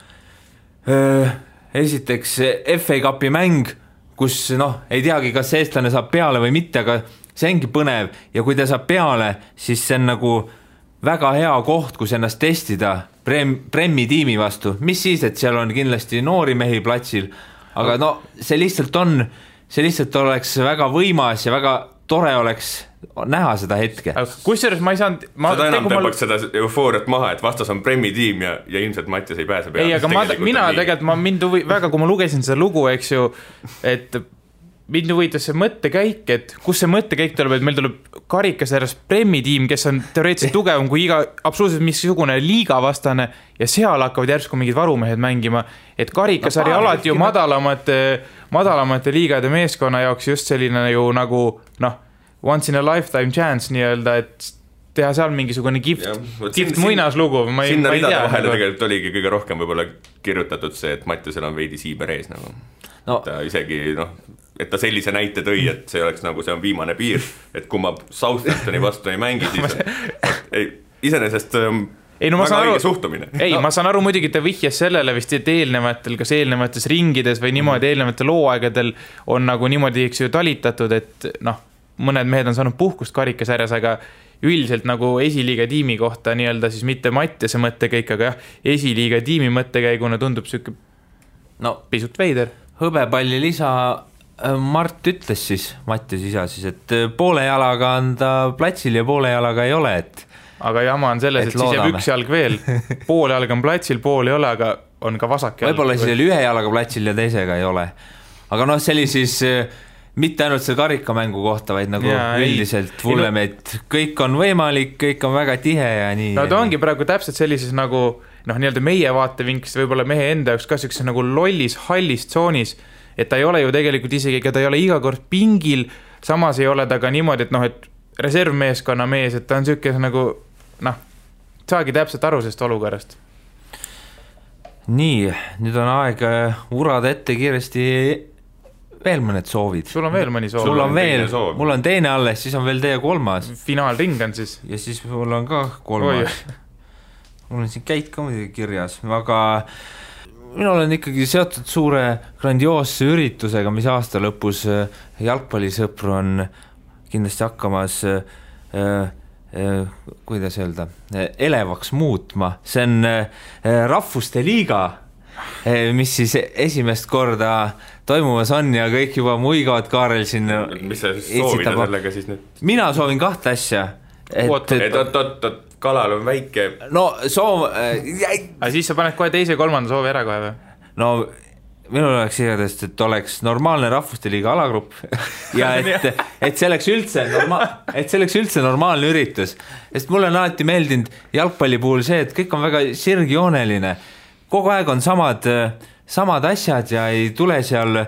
esiteks FA Cupi mäng, kus ei teagi, kas eestlane saab peale või mitte, aga see ongi põnev ja kui ta saab peale, siis see on nagu väga hea koht, kus ennast testida Premi tiimi vastu, mis siis, et seal on kindlasti noori mehi platsil, aga see lihtsalt oleks väga võimas ja väga tore oleks näha seda hetke. Kusjuures ma ei saanud... Seda enam tõmbaks seda eufooriat maha, et vastas on Premi tiim ja ilmselt Mattias ei pääse peale. Ei, aga mina tegelikult, väga kui ma lugesin seda lugu, eks ju, et mind huvitav see mõttekäik, et kus see mõttekäik tuleb, et meil tuleb karikasarjas Premi tiim, kes on teoreetiliselt tugevam kui iga absoluutselt missugune liigavastane ja seal hakkavad järsku mingid varumehed mängima, et karikasari alati ju madalamate liigade meeskonna jaoks just selline ju nagu once in a lifetime chance nii-öelda, et teha seal mingisugune kift muinaslugu. Sinna ridade vahele tegelikult oligi kõige rohkem võib-olla kirjutatud see, et Mattiasel on veidi siiber ees nagu. Ta isegi et ta sellise näite tõi, et see oleks nagu see on viimane piir, et kui ma Southamptoni vastu ei mängi, siis iseenesest väga õige suhtumine. Ma saan aru muidugi, ta vihjas sellele vist, et kas eelnevates ringides või niimoodi eelnevatel looaegadel on nagu niimoodi eks ju talitatud, et mõned mehed on saanud puhkust karikasarjas, aga üldiselt nagu esiliiga tiimi kohta nii-öelda siis mitte Mattiase mõttekäik, aga jah, esiliiga tiimi mõttekäiguna tundub süke pisut veider. Hõbepalli lisa Mart ütles siis, Mattias isa siis, et poole jalaga on ta platsil ja poole jalaga ei ole, et aga jama on selles, et siis jääb üks jalg veel. Pool jalg on platsil, pool ei ole, aga on ka vasak jalg. Võib-olla siis ühe jalaga platsil ja teisega ei ole. Aga see oli siis mitte ainult see karikamängu kohta, vaid nagu üldiselt vulleme, et kõik on võimalik, kõik on väga tihe ja nii. No ta ongi praegu täpselt sellises nagu nii-öelda meie vaatevinkist võib-olla mehe enda jaoks ka sellises nagu lollis, hallis tsoonis, et ta ei ole ju tegelikult isegi, ta ei ole iga kord pingil, samas ei ole ta ka niimoodi, et reservmeeskonna mees, et ta on selline nagu saagi täpselt aru sellest olukorrast. Nii, nüüd on aeg urada ette kiiresti veel mõned soovid. Sul on veel mõni soov? Sul on veel, mul on teine alles, siis on veel teie kolmas. Finaalring on siis? Ja siis mul on ka kolmas. Mul on siin käid ka muidugi kirjas, aga minul on ikkagi seotud suure grandioosse üritusega, mis aasta lõpus jalgpallisõpru on kindlasti hakkamas kuidas öelda, elevaks muutma. See on Rahvuste Liiga, mis siis esimest korda toimumas on ja kõik juba muigavad Kaarel siin. Mis sa soovida sellega siis nüüd? Mina soovin kahte asja. Et kalal on väike. No soov... Aga siis sa paned kohe teise ja kolmanda soovi ära kohe või? No minul oleks igatahes, et oleks normaalne Rahvuste Liiga alagrupp ja et see oleks üldse normaalne üritus. Sest mulle on alati meeldinud jalgpalli puhul see, et kõik on väga sirgjooneline. Kogu aeg on samad asjad ja ei tule seal,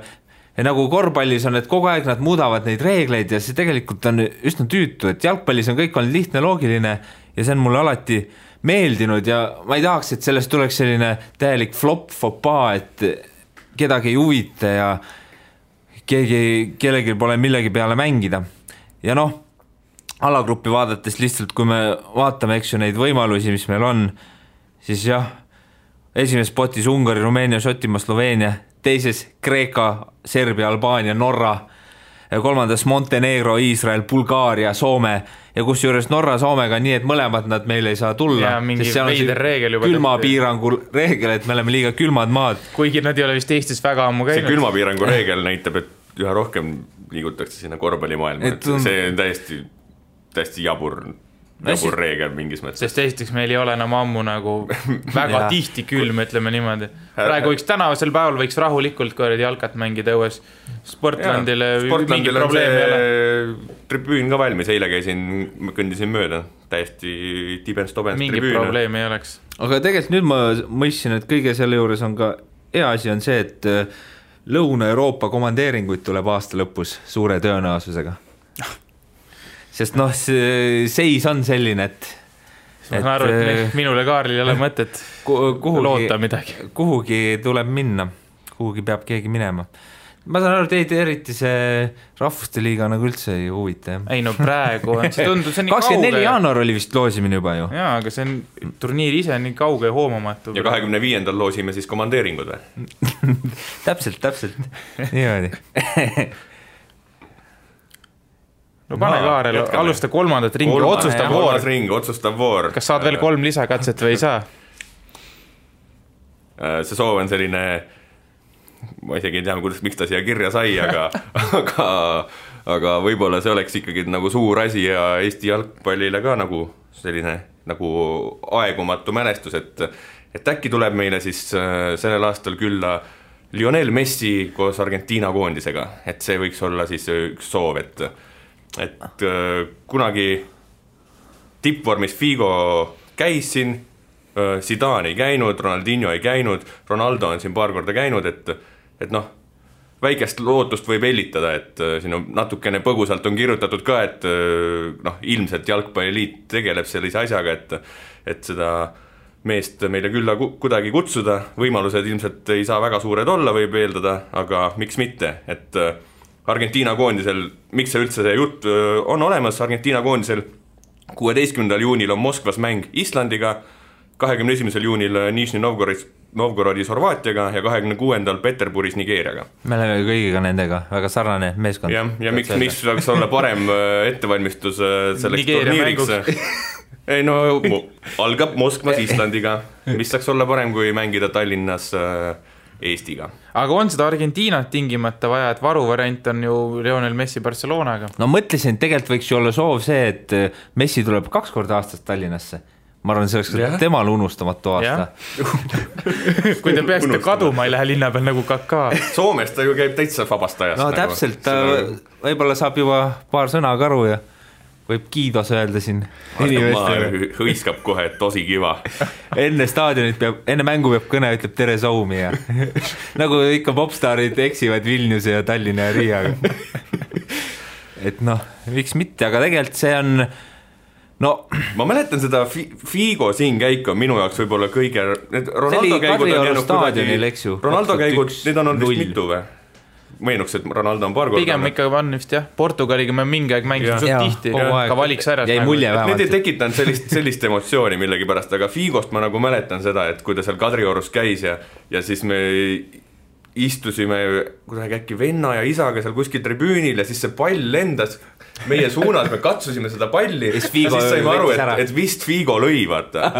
nagu korvpallis on, et kogu aeg nad muudavad neid reegleid ja see tegelikult on üsna tüütu, et jalgpallis on kõik on lihtne, loogiline ja see on mulle alati meeldinud ja ma ei tahaks, et sellest tuleks selline täielik flop-fopaa, et kedagi ei huvita ja kellelgi pole millegi peale mängida. Ja alagruppi vaadates lihtsalt, kui me vaatame, eks ju, neid võimalusi, mis meil on, siis jah, esimeses potis Ungari, Rumeenia, Šotimaa, Sloveenia, teises Kreeka, Serbia, Albaania, Norra, kolmandas Montenegro, Iisrael, Bulgaaria, Soome ja kus juures Norra Soomega nii, et mõlemad nad meil ei saa tulla. Ja mingi veider reegel juba. Külmapiirangu reegel, et me oleme liiga külmad maad. Kuigi nad ei ole vist Eestis väga ammu käinud. See külmapiirangu reegel näitab, et üha rohkem liigutakse sinna korvpallimaailma. See on täiesti jabur jabur reegel mingis mõttes. Sest esiteks meil ei ole enam ammu nagu väga tihti külm, ütleme niimoodi. Praegu võiks tänavasel päeval võiks rahulikult korredi jalkat mängida õues. Sportlandile mingi probleem ei ole. Tribüün ka valmis, eile kõndisin mööda, täiesti tibens-tobens mingi tribüün. Mingi probleem ei oleks. Aga tegelikult nüüd ma mõistsin, et kõige selle juures on ka hea asi on see, et Lõuna-Euroopa komandeeringuid tuleb aasta lõpus suure tõenäosusega. Sest seis on selline, et ma saan aru, et minule Kaarlil ei ole mõtet loota midagi. Kuhugi tuleb minna, kuhugi peab keegi minema. Ma saan aru, teid eriti see rahvuste liiga nagu üldse ei huvita. Ei no praegu on, see tundub, see on nii 24 kauge. jaanuar oli vist loosimine juba ju. Jaa, aga see on turniir ise nii kauge ja hoomamatu. Ja 25. loosime siis komandeeringud või? Täpselt. Niimoodi. No pane Kaarel, alusta kolmandat ringi, otsustav voor. Kas saad veel 3 lisakatset või ei saa? See soov on selline, ma isegi ei tea, miks ta siia kirja sai, aga võib-olla see oleks ikkagi nagu suur asi ja Eesti jalgpallile ka nagu selline nagu aegumatu mälestus, et äkki tuleb meile siis sellel aastal külla Lionel Messi koos Argentiina koondisega, et see võiks olla siis üks soov, et kunagi tippvormis Figo käis siin, Zidane ei käinud, Ronaldinho ei käinud, Ronaldo on siin paar korda käinud, et väikest lootust võib hellitada, et siin on natukene põgusalt on kirjutatud ka, et ilmselt jalgpalliliit tegeleb sellise asjaga, et seda meest meile külla kuidagi kutsuda, võimalused ilmselt ei saa väga suured olla, võib eeldada, aga miks mitte, et Argentiina koondisel, miks see üldse see jutt on olemas, Argentiina koondisel 16. juunil on Moskvas mäng Islandiga, 21. juunil Nižni Novgorodis Horvaatiaga ja 26. Peterburis Nigeeriaga. Me oleme kõigiga nendega, väga sarnane meeskond. Ja miks saaks olla parem ettevalmistus selleks turniiriks? Ei no, algab Moskvas Islandiga, mis saaks olla parem kui mängida Tallinnas Eestiga. Aga on seda Argentiinat tingimata vaja, et varuvariant on ju Lionel Messi Barcelonaga? No mõtlesin, tegelikult võiks ju olla soov see, et Messi tuleb 2 korda aastast Tallinnasse. Ma arvan, see oleks temal unustamatu aasta. Kui te peaksite kaduma, ei lähe linna peal nagu Kaká. Soomes ta ju käib täitsa vabast ajast. No täpselt, ta võib-olla saab juba paar sõna karu ja võib kiidos öelda siin. Hõiskab kohe, et tosi kiva. Enne mängu peab kõne, ütleb tere Soumi ja nagu ikka popstaarid eksivad Vilniuse ja Tallinna ja Riiaga. Et miks mitte, aga tegelikult see on ma mäletan seda Figo siin käik on minu jaoks võib-olla kõige Ronaldo käigud on jäänud kuidagi Ronaldo käigud, need on olnud vist mitu või? Meenuks, et Ronaldo on paar korda pigem ikka on vist jah, Portugaliga me mingi aeg mängisime suht tihti ka valiks ära need ei tekitanud sellist emotsiooni millegipärast, aga Figost ma nagu mäletan seda, et kui ta seal Kadriorus käis ja siis me istusime kuidagi äkki venna ja isaga seal kuskil tribüünil ja siis see pall lendas meie suunas, me katsusime seda palli ja siis saime aru, et vist Figo lõi, vaata.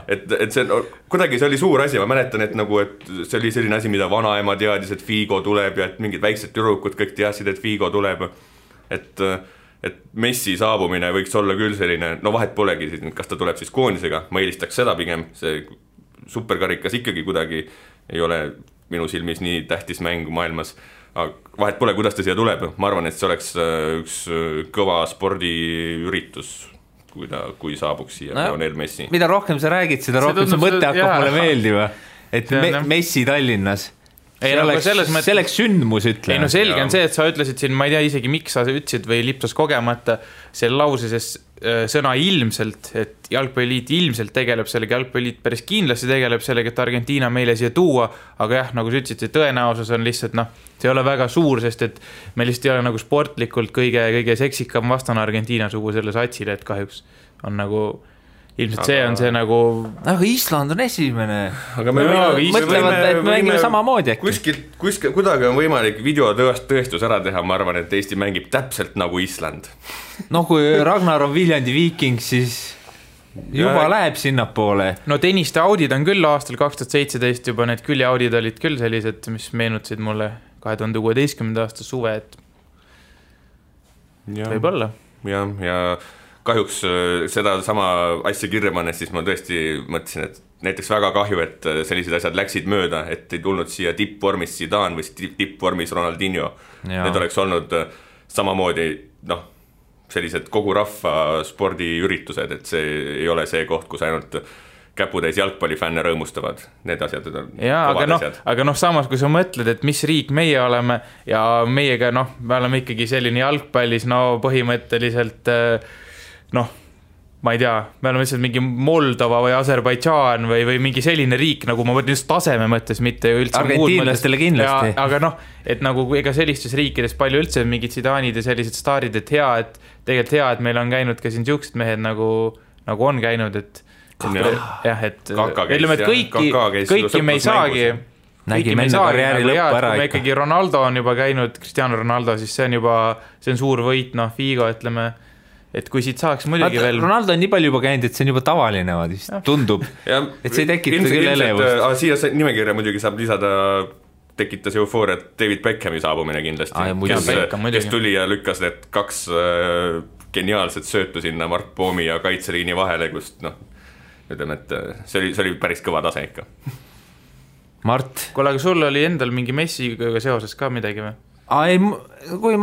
Et see, kuidagi see oli suur asi, ma mäletan, et see oli selline asi, mida vanaema teadis, et Figo tuleb ja et mingid väiksed tüdrukud kõik teadsid, et Figo tuleb. Et Messi saabumine võiks olla küll selline, vahet polegi, kas ta tuleb siis koondisega, ma eelistaks seda pigem, see superkarikas ikkagi kuidagi ei ole minu silmis nii tähtis mäng maailmas. Vahet pole, kuidas ta siia tuleb. Ma arvan, et see oleks üks kõva spordiüritus, kui saabuks siia Lionel Messi. Mida rohkem sa räägid, seda rohkem see mõte hakkab mulle meeldiva. Et Messi Tallinnas. See oleks sündmus, ütle. Ei no selge on see, et sa ütlesid siin, ma ei tea isegi miks sa ütlesid või lipsas kogemata selle lauses sõna ilmselt, et jalgpalliliit ilmselt tegeleb sellega, jalgpalliliit päris kindlasti tegeleb sellega, et Argentiina meile siia tuua, aga jah, nagu sa ütlesid, see tõenäosus on lihtsalt, see ei ole väga suur, sest et me lihtsalt ei ole nagu sportlikult kõige seksikam vastane Argentiina sugu selle satsile, et kahjuks on nagu ilmselt see on see nagu aga Island on esimene aga me mõtlevad, et me mängime samamoodi äkki kuskil kuidagi on võimalik videotõestus ära teha, ma arvan, et Eesti mängib täpselt nagu Island kui Ragnar on Viljandi Viiking, siis juba läheb sinnapoole. No tenniste audid on küll aastal 2017 juba, need küljeaudid olid küll sellised, mis meenutasid mulle 2016. aasta suve, et võib olla. Ja kahjuks seda sama asja kirja pannes, siis ma tõesti mõtlesin, et näiteks väga kahju, et sellised asjad läksid mööda, et ei tulnud siia tippvormis Zidane või tippvormis Ronaldinho. Need oleks olnud samamoodi, sellised kogu rahva spordiüritused, et see ei ole see koht, kus ainult käputäis jalgpallifänne rõõmustavad, need asjad on aga samas kui sa mõtled, et mis riik meie oleme ja meiega, me oleme ikkagi selline jalgpallis, põhimõtteliselt ma ei tea, me oleme lihtsalt mingi Moldova või Aserbaidžaan või mingi selline riik, nagu ma mõtlen just taseme mõttes, mitte üldse argentiinlastele kindlasti. Aga et nagu ega sellistes riikides palju üldse mingid Zidane'id ja sellised staarid, et tegelikult hea, et meil on käinud ka siin siuksed mehed nagu on käinud, et ütleme, et kõiki me ei saagi nägime enda karjääri lõppu ära ikka. Ikkagi Ronaldo on juba käinud, Cristiano Ronaldo, siis see on suur võit, Figo, ütleme, et kui siit saaks muidugi veel Ronaldo on nii palju juba käinud, et see on juba tavaline tundub, et see ei tekita küll elevust. Siia nimekirja muidugi saab lisada, tekitas eufooriat David Beckhami saabumine kindlasti, kes tuli ja lükkas need 2 geniaalset söötu sinna Mark Poomi ja kaitseliini vahele, kust ütleme, et see oli päris kõva tase ikka. Mart? Kuule, aga sul oli endal mingi Messiga seoses ka midagi või? Kui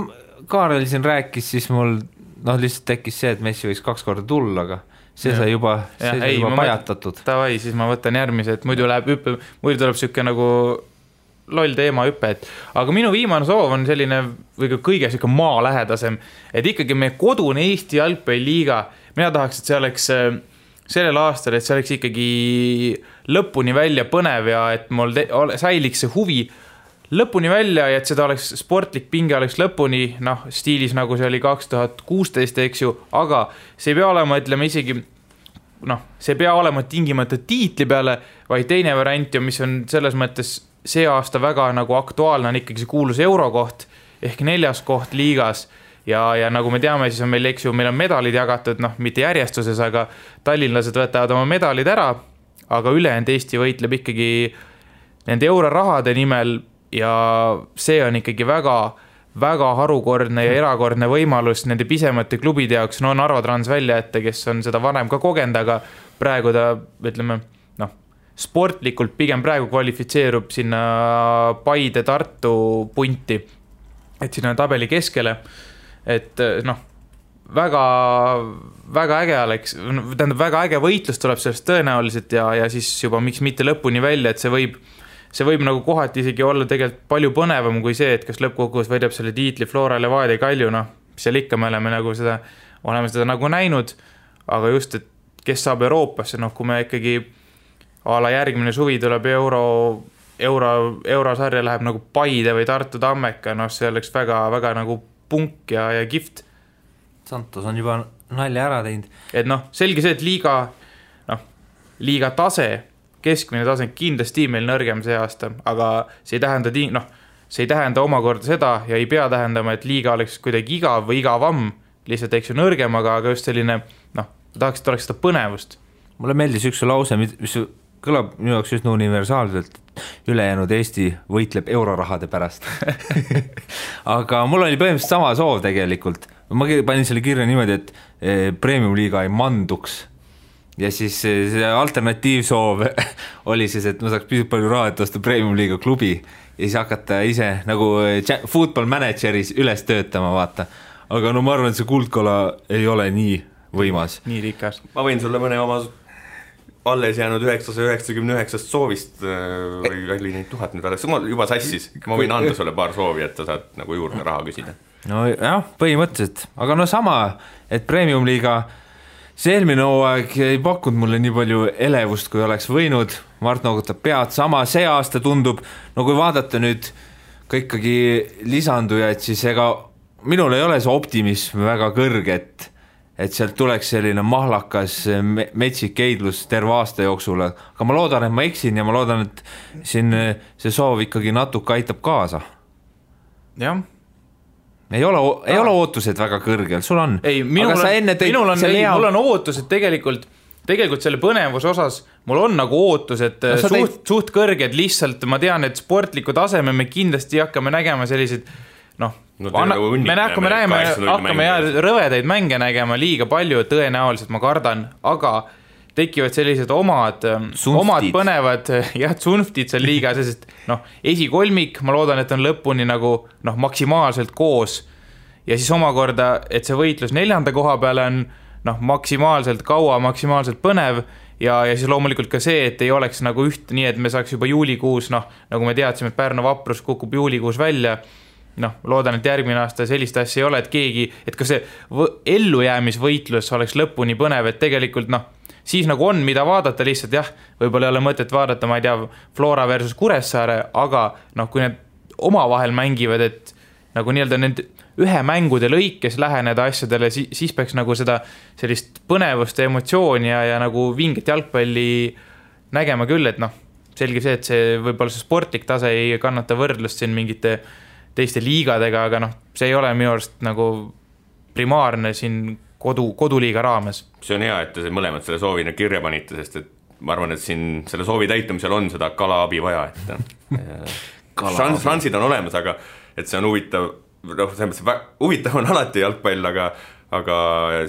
Kaarel siin rääkis, siis mul lihtsalt tekkis see, et Messi võiks 2 korda tulla, aga see sai juba pajatatud. Tavai, siis ma võtan järgmise, et muidu tuleb siuke nagu loll teema hüppe, aga minu viimane soov on selline või kõige siuke maalähedasem, et ikkagi meie kodune Eesti jalgpalliliiga, mina tahaks, et see oleks sellel aastal, et see oleks ikkagi lõpuni välja põnev ja et mul säiliks see huvi lõpuni välja ja et seda oleks sportlik pinge oleks lõpuni, stiilis nagu see oli 2016, eks ju, aga see ei pea olema, ütleme isegi, see ei pea olema tingimata tiitli peale, vaid teine variant ja mis on selles mõttes see aasta väga nagu aktuaalne on ikkagi see kuulus eurokoht ehk 4. koht liigas ja nagu me teame, siis on meil, eks ju, meil on medalid jagatud, mitte järjestuses, aga tallinlased võtavad oma medalid ära, aga ülejäänud Eesti võitleb ikkagi nende eurorahade nimel ja see on ikkagi väga, väga harukordne ja erakordne võimalus nende pisemate klubide jaoks, Narva Trans välja ette, kes on seda varem ka kogenud, aga praegu ta, ütleme, sportlikult pigem praegu kvalifitseerub sinna Paide Tartu punti, et sinna tabeli keskele, et väga, väga äge oleks, tähendab väga äge võitlus tuleb sellest tõenäoliselt ja siis juba miks mitte lõpuni välja, et see võib nagu kohati isegi olla tegelikult palju põnevam kui see, et kas lõppkokkuvõttes võidab selle tiitli Flora Levadia Kalju, seal ikka me oleme seda nagu näinud, aga just, et kes saab Euroopasse, kui me ikkagi ala järgmine suvi tuleb eurosarja läheb nagu Paide või Tartu Tammeka, see oleks väga, väga nagu punk ja kihvt. Santos on juba nalja ära teinud. Et selge see, et liiga tase, keskmine tase kindlasti meil nõrgem see aasta, aga see ei tähenda omakorda seda ja ei pea tähendama, et liiga oleks kuidagi igav või igavam, lihtsalt eks ju nõrgem, aga just selline, tahaks, et oleks seda põnevust. Mulle meeldis üks lause, mis kõlab minu jaoks just universaalselt, ülejäänud Eesti võitleb eurorahade pärast. Aga mul oli põhimõtteliselt sama soov tegelikult. Ma panin selle kirja niimoodi, et premium-liiga ei manduks. Ja siis see alternatiivsoov oli siis, et ma saaks pisut palju raha, et osta premium-liiga klubi ja siis hakata ise nagu football manageris üles töötama, vaata. Aga ma arvan, et see kuldkola ei ole nii võimas. Nii rikas. Ma võin sulle mõne oma alles jäänud 999 soovist või oli neid 1000 nüüd alles, juba sassis, ma võin anda sulle paar soovi, et sa saad nagu juurde raha küsida. No jah, põhimõtteliselt, aga sama, et premium-liiga see eelmine hooaeg ei pakkunud mulle nii palju elevust, kui oleks võinud, Mart noogutab pead, sama see aasta tundub, kui vaadata nüüd ka ikkagi lisandujaid, siis ega minul ei ole see optimism väga kõrge, et sealt tuleks selline mahlakas metsik eidlus terve aasta jooksul, aga ma loodan, et ma eksin ja ma loodan, et siin see soov ikkagi natuke aitab kaasa. Jah. Ei ole ootused väga kõrgel, sul on. Ei, minul on ootused tegelikult selle põnevuse osas, mul on nagu ootused suht kõrged, lihtsalt ma tean, et sportliku taseme me kindlasti hakkame nägema sellised hakkame rõvedaid mänge nägema liiga palju, tõenäoliselt ma kardan, aga tekivad sellised omad põnevad tsunftid seal liigas, sest esikolmik, ma loodan, et on lõpuni nagu maksimaalselt koos ja siis omakorda, et see võitlus 4. koha peale on maksimaalselt kaua, maksimaalselt põnev ja siis loomulikult ka see, et ei oleks nagu üht nii, et me saaks juba juulikuus, nagu me teadsime, et Pärnu Vaprus kukub juulikuus välja, loodan, et järgmine aasta sellist asja ei ole, et keegi, et ka see ellujäämisvõitlus oleks lõpuni põnev, et tegelikult siis nagu on, mida vaadata lihtsalt, jah, võib-olla ei ole mõtet vaadata, ma ei tea, Flora versus Kuressaare, aga kui need omavahel mängivad, et nagu nii-öelda need ühe mängude lõikes läheneda asjadele, siis peaks nagu seda sellist põnevust ja emotsiooni ja nagu vinget jalgpalli nägema küll, et selge see, et see võib-olla see sportlik tase ei kannata võrdlust siin mingite teiste liigadega, aga see ei ole minu arust nagu primaarne siin koduliiga raames. See on hea, et te mõlemad selle soovi kirja panite, sest et ma arvan, et siin selle soovi täitumisel on seda kalaabi vaja, et šansid on olemas, aga et see on huvitav, huvitav on alati jalgpall, aga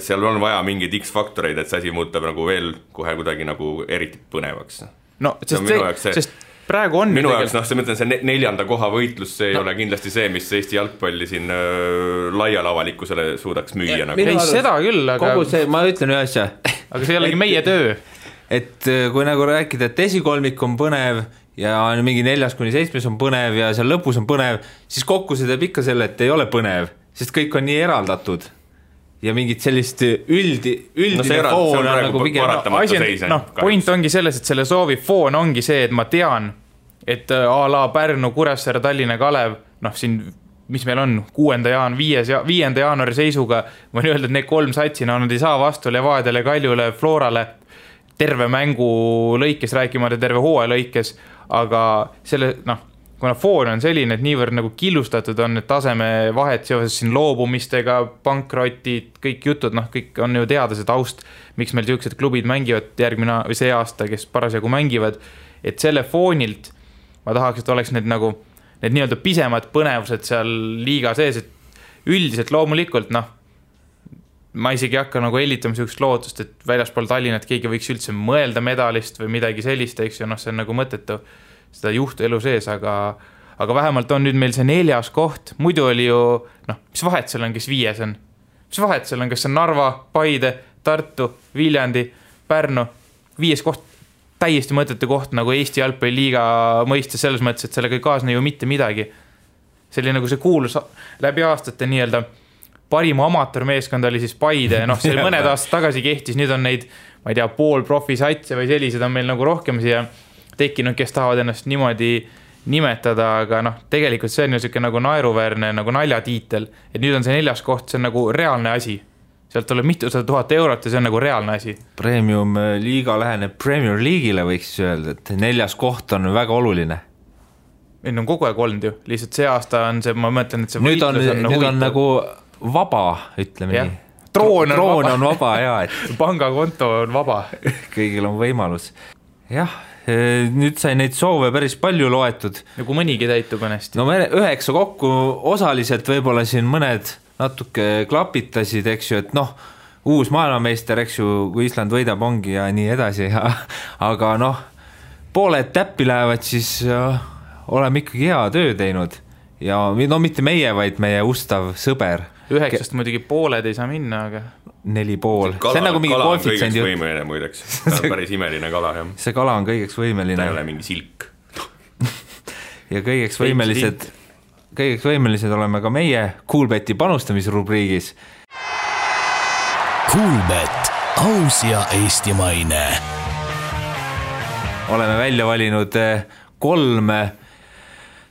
seal on vaja mingeid X-faktoreid, et see asi muutub nagu veel kohe kuidagi nagu eriti põnevaks. Sest praegu on minu jaoks, see mõtlen, see 4. koha võitlus, see ei ole kindlasti see, mis Eesti jalgpalli siin laial avalikkusele suudaks müüa. Ei, seda küll, aga kogu see, ma ütlen ühe asja. Aga see ei olegi meie töö. Et kui nagu rääkida, et esikolmik on põnev ja mingi 4-7 on põnev ja seal lõpus on põnev, siis kokku see teeb ikka selle, et ei ole põnev, sest kõik on nii eraldatud ja mingit sellist üldine foon on nagu pigem. Point ongi selles, et selle soovi foon ongi see, et ma tean, et a la Pärnu, Kuressaare, Tallinna, Kalev, siin, mis meil on 5. jaanuari seisuga, võin öelda, et need 3 satsina nad ei saa vastu Levadiale, Kaljule, Florale terve mängu lõikes, rääkimata terve hooaja lõikes, aga selle, kuna foon on selline, et niivõrd nagu killustatud on need taseme vahet seoses siin loobumistega, pankrotid, kõik jutud, kõik on ju teada see taust, miks meil sellised klubid mängivad järgmine või see aasta, kes parasjagu mängivad, et selle foonilt ma tahaks, et oleks need nagu need nii-öelda pisemad põnevused seal liiga sees, et üldiselt loomulikult, ma isegi hakka nagu hellitama sellist lootust, et väljaspool Tallinnat keegi võiks üldse mõelda medalist või midagi sellist, eks ju, see on nagu mõttetu seda juhtu elu sees, aga vähemalt on nüüd meil see 4. koht, muidu oli ju, mis vahet seal on, kes 5 on? Mis vahet seal on, kas on Narva, Paide, Tartu, Viljandi, Pärnu, 5. koht, täiesti mõttetu koht nagu Eesti jalgpalliliiga mõistes selles mõttes, et sellega ei kaasne ju mitte midagi. See oli nagu see kuulus läbi aastate nii-öelda parima amatöörmeeskond oli siis Paide, see mõned aastad tagasi kehtis, nüüd on neid, ma ei tea, poolprofisatse või sellised on meil nagu rohkem siia tekkinud, kes tahavad ennast niimoodi nimetada, aga tegelikult see on ju selline nagu naeruväärne nagu naljatiitel, et nüüd on see 4. koht, see on nagu reaalne asi. Sealt tuleb mitusada 1000 eurot ja see on nagu reaalne asi. Premium liiga läheneb Premier League'ile võiks öelda, et 4. koht on väga oluline. Nüüd on kogu aeg olnud ju, lihtsalt see aasta on see, ma mõtlen, et see võitlus on nüüd on nagu vaba, ütleme nii. Troon on vaba, jah. Pangakonto on vaba. Kõigil on võimalus. Jah, nüüd sai neid soove päris palju loetud. Nagu mõnigi täitub ennast. 9 kokku osaliselt võib-olla siin mõned natuke klapitasid, eks ju, et uus maailmameister, eks ju, kui Island võidab ongi ja nii edasi. Aga pooled täppi lähevad, siis oleme ikkagi hea töö teinud. Ja mitte meie, vaid meie ustav sõber. 9 muidugi pooled ei saa minna, aga 4,5. See on nagu mingi koefitsient. Kala on kõigeks võimeline muideks. Ta on päris imeline kala, jah. See kala on kõigeks võimeline. Ta ei ole mingi silk. Ja kõigeks võimelised oleme ka meie Coolbeti panustamisrubriigis. Coolbet, aus ja eestimaine. Oleme välja valinud 3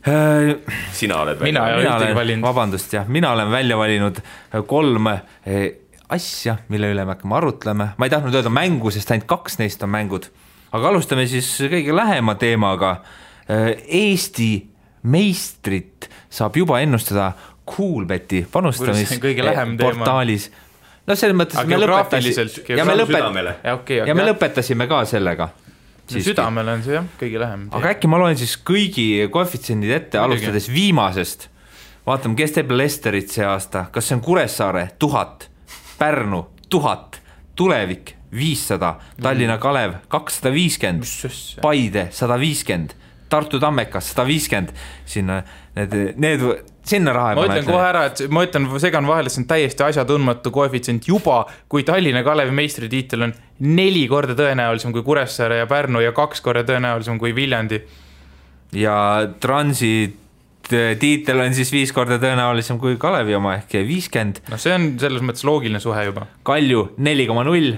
Sina oled välja valinud. Vabandust, jah. Mina olen välja valinud 3 asja, mille üle me hakkame arutlema. Ma ei tahtnud öelda mängu, sest ainult 2 neist on mängud. Aga alustame siis kõige lähema teemaga. Eesti meistrit saab juba ennustada Coolbeti panustamisportaalis. Selles mõttes me lõpetasime ka sellega. Südamele on see jah, kõige lähem. Aga äkki ma loen siis kõigi koefitsiendid ette, alustades viimasest. vaatame, kes teeb Lesterit see aasta, kas see on Kuressaare 1000, Pärnu 1000, Tulevik 500, Tallinna Kalev 250, Paide 150, Tartu Tammekas 150, sinna sinna raha ma ütlen kohe ära, et ma ütlen, segan vahele, see on täiesti asjatundmatu koefitsient juba, kui Tallinna Kalevi meistritiitel on 4 korda tõenäolisem kui Kuressaare ja Pärnu ja 2 korda tõenäolisem kui Viljandi. Ja Transit tiitel on siis 5 korda tõenäolisem kui Kalevi oma ehk 50. No see on selles mõttes loogiline suhe juba. Kalju 4,0,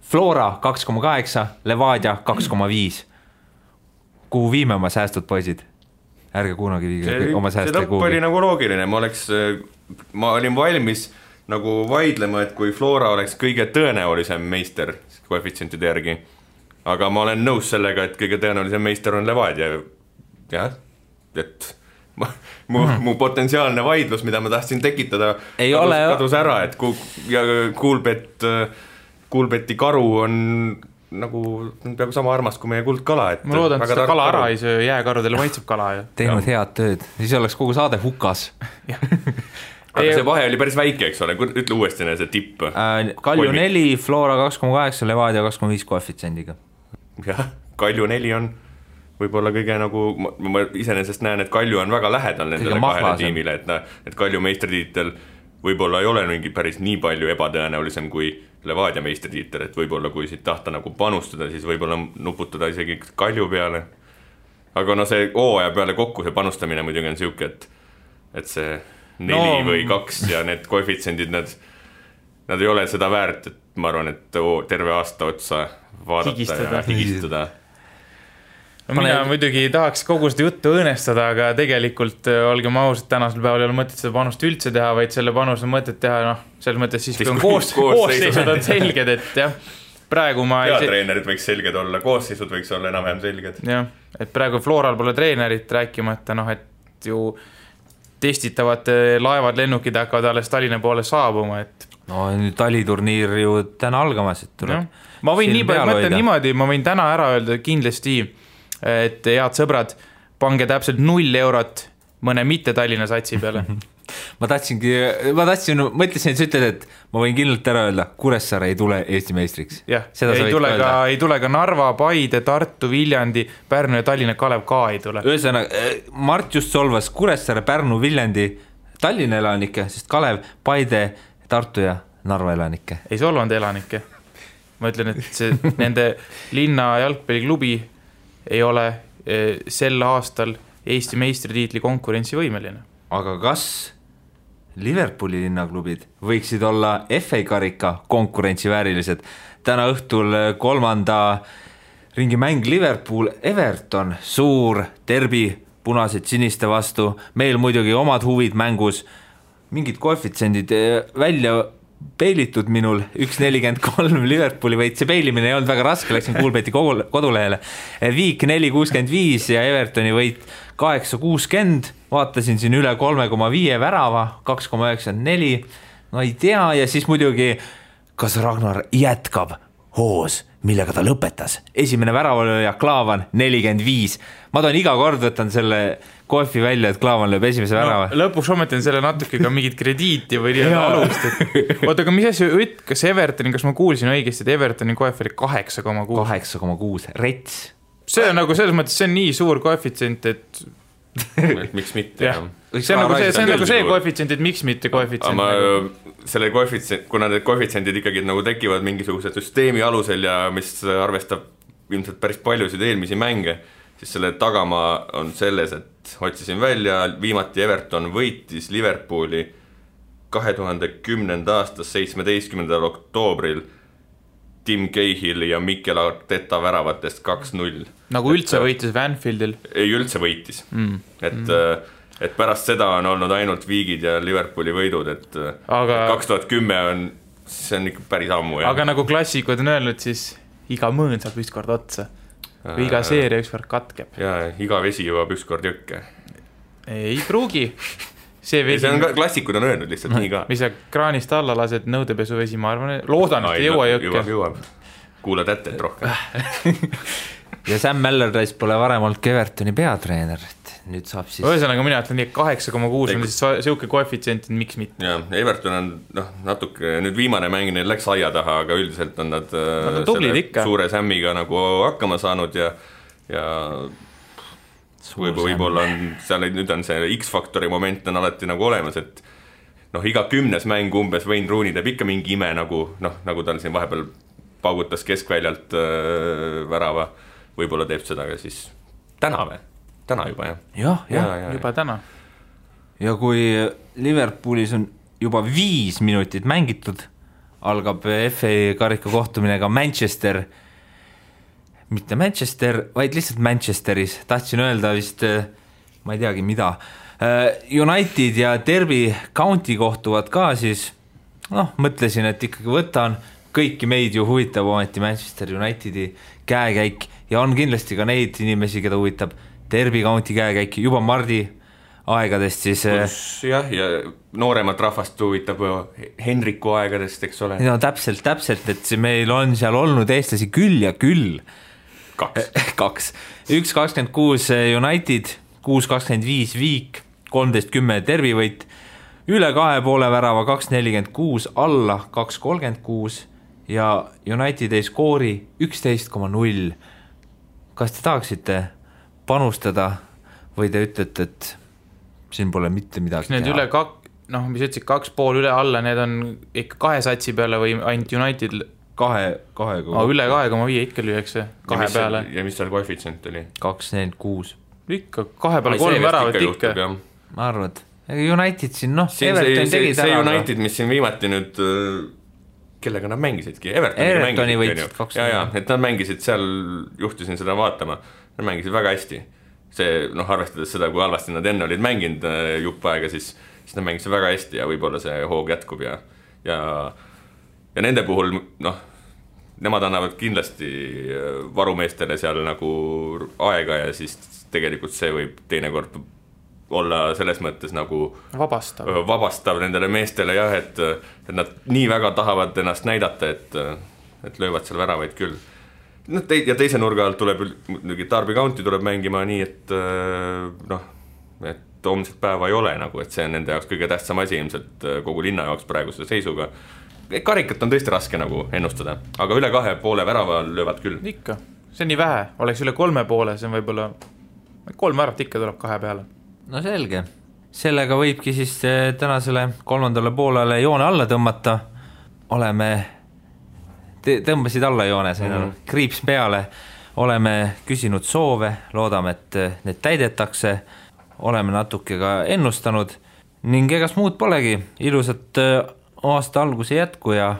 Flora 2,8, Levadia 2,5. Kuhu viime oma säästud, poisid? Ärge kunagi viige oma sääste kuhugi. See lõpp oli nagu loogiline, ma olin valmis nagu vaidlema, et kui Flora oleks kõige tõenäolisem meister koefitsientide järgi, aga ma olen nõus sellega, et kõige tõenäolisem meister on Levadia. Jah, et mu potentsiaalne vaidlus, mida ma tahtsin tekitada, kadus ära, et Kuulbeti karu on nagu peaaegu sama armas kui meie kuldkala. Ma loodan, et seda kala ära ei söö, jääkarudele maitseb kala. Teinud head tööd, siis oleks kogu saade hukas. Aga see vahe oli päris väike, eks ole, ütle uuesti see tipp. Kalju 4, Flora 2,8, Levadia 2,5 koefitsendiga. Jah, Kalju 4 on võib-olla kõige nagu, ma iseenesest näen, et Kalju on väga lähedal nendele kahele tiimile, et Kalju meistritiitel võib-olla ei ole mingi päris nii palju ebatõenäolisem kui Levadia meistritiitel, et võib-olla kui siit tahta nagu panustada, siis võib-olla nuputada isegi Kalju peale. Aga no see hooaja peale kokku see panustamine muidugi on siuke, et see 4 või 2 ja need koefitsendid, nad ei ole seda väärt, et ma arvan, et terve aasta otsa vaadata ja higistada. No mina muidugi tahaks kogu seda juttu õõnestada, aga tegelikult olgem ausad, tänasel päeval ei ole mõtet seda panust üldse teha, vaid selle panus on mõtet teha, selles mõttes siis kui on koosseisud on selged, et jah, praegu ma treenerid võiks selged olla, koosseisud võiks olla enam-vähem selged. Jah, et praegu Floral pole treenerit rääkimata, et ju testitavad laevad, lennukid hakkavad alles Tallinna poole saabuma, et no nüüd taliturniir ju täna algamas, et tuleb. Ma võin nii palju mõtlen niimoodi, ma võin täna ära öelda kindlasti, et head sõbrad, pange täpselt 0 eurot mõne mitte Tallinna satsi peale. mõtlesin, et sa ütled, et ma võin kindlalt ära öelda, Kuressaare ei tule Eesti meistriks. Jah, ei tule ka Narva, Paide, Tartu, Viljandi, Pärnu ja Tallinna Kalev ka ei tule. Ühesõnaga, Mart just solvas Kuressaare, Pärnu, Viljandi, Tallinna elanikke, sest Kalev, Paide, Tartu ja Narva elanikke. Ei solvanud elanikke. Ma ütlen, et see, nende linna jalgpalliklubi ei ole sel aastal Eesti meistritiitli konkurentsivõimeline. Aga kas Liverpooli linnaklubid võiksid olla FA karika konkurentsiväärilised? Täna õhtul 3. ringi mäng Liverpool Everton, suur derbi punased siniste vastu, meil muidugi omad huvid mängus, mingid koefitsendid välja peilitud minul, 1.43 Liverpooli võit, see peilimine ei olnud väga raske, läksin Kuulbeti kodulehele, Viik 4.65 ja Evertoni võit 8.60, vaatasin siin üle 3,5 värava, 2,94, no ei tea, ja siis muidugi, kas Ragnar jätkab hoos, millega ta lõpetas, esimene väravalööja Klaavan 45, ma toon iga kord võtan selle koefi välja, et Klaavan lööb esimese värava. Lõpuks ometan selle natuke ka mingit krediiti või alust, et oota, aga mis asja, kas Evertoni, kas ma kuulsin õigesti, et Evertoni koef oli 8,6? 8,6, rets. See on nagu selles mõttes, see on nii suur koefitsient, et miks mitte, jah. See on nagu see koefitsient, et miks mitte koefitsient. Selle koefitsient, kuna need koefitsendid ikkagi nagu tekivad mingisuguse süsteemi alusel ja mis arvestab ilmselt päris paljusid eelmisi mänge, siis selle tagamaa on selles, et otsisin välja, viimati Everton võitis Liverpooli 2010. aastas 17. oktoobril Tim Cahill ja Mikel Arteta väravatest 2-0. Nagu üldse võitis Vanfieldil? Ei, üldse võitis. Et pärast seda on olnud ainult Viigid ja Liverpooli võidud, et 2010 on, see on ikka päris ammu. Aga nagu klassikud on öelnud, siis iga mõõn saab ükskord otsa. Või iga seeria ükskord katkeb. Ja iga vesi jõuab ükskord jõkke. Ei pruugi. See on klassikud on öelnud lihtsalt nii ka. Mis sa kraanist alla lased nõudepesuvesi, ma arvan, loodan, et ei jõua jõkke. Jõuab. Kuula tätet rohkem. Ja Sam Allardyce pole varem olnud Evertoni peatreener. nüüd saab siis ühesõnaga mina ütlen nii, 8,6 on siis siuke koefitsient, miks mitte. Ja, Everton on natuke, nüüd viimane mäng neil läks aia taha, aga üldiselt on nad suure sämmiga nagu hakkama saanud ja võib-olla on seal, nüüd on see X-faktori moment on alati nagu olemas, et iga 10. mäng umbes Wayne Rooney teeb ikka mingi ime nagu tal siin vahepeal paugutas keskväljalt värava, võib-olla teeb seda ka siis täna juba, jah. Juba täna. Ja kui Liverpoolis on juba 5 minutit mängitud, algab FA karika kohtumine ka mitte Manchester, vaid lihtsalt Manchesteris. Tahtsin öelda vist, ma ei teagi mida. United ja Derby County kohtuvad ka siis, mõtlesin, et ikkagi võtan, kõiki meid ju huvitab ometi Manchester Unitedi käekäik ja on kindlasti ka neid inimesi, keda huvitab Derby County käekäik juba Mardi aegadest siis. Ja nooremat rahvast huvitab Henriku aegadest, eks ole. No täpselt, et meil on seal olnud eestlasi küll ja küll. 2. 1.26 United, 6.25 Viik, 13.10 Derby võit, üle 2,5 värava 2.46, alla 2.36 ja United ei skoori 11,0. Kas te tahaksite panustada või te ütlete, et siin pole mitte midagi teha? Need üle mis ütlesid 2,5 üle alla, need on ikka 2 satsi peale või ainult United? 2. Üle 2,5 ikka lüüakse 2 peale. Ja mis seal koefitsient oli? 2.46. Ikka 2 peale 3 väravat ikka. Ma arvad, United siin, Everton tegi see United, mis siin viimati nüüd, kellega nad mängisidki? Evertoni võitsid 2. Et nad mängisid seal, juhtusin seda vaatama, nad mängisid väga hästi. See, arvestades seda, kui halvasti nad enne olid mänginud jupp aega, siis nad mängisid väga hästi ja võib-olla see hoog jätkub ja nende puhul, nemad annavad kindlasti varumeestele seal nagu aega ja siis tegelikult see võib teinekord olla selles mõttes nagu vabastav nendele meestele et nad nii väga tahavad ennast näidata, et löövad seal väravaid küll. Ja teise nurga alt tuleb Derby County tuleb mängima nii, et homset päeva ei ole nagu, et see on nende jaoks kõige tähtsam asi ilmselt kogu linna jaoks praeguse seisuga. Karikat on tõesti raske nagu ennustada, aga üle 2,5 värava löövad küll. Ikka, see on nii vähe, oleks üle 3,5, see on võib-olla 3 väravat ikka tuleb 2 peale. No selge, sellega võibki siis tänasele 3. poolele joone alla tõmmata. Tõmbasid alla joone, kriips peale, oleme küsinud soove, loodame, et need täidetakse, oleme natuke ka ennustanud ning egas muud polegi, ilusat aasta alguse jätku ja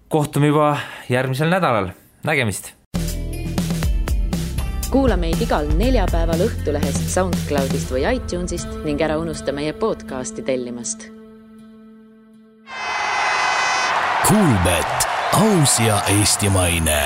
kohtume juba järgmisel nädalal. Nägemist! Kuula meid igal neljapäeval Õhtulehest, SoundCloudist või iTunesist ning ära unusta meie podcasti tellimast. Kuulbet, aus ja eestimaine.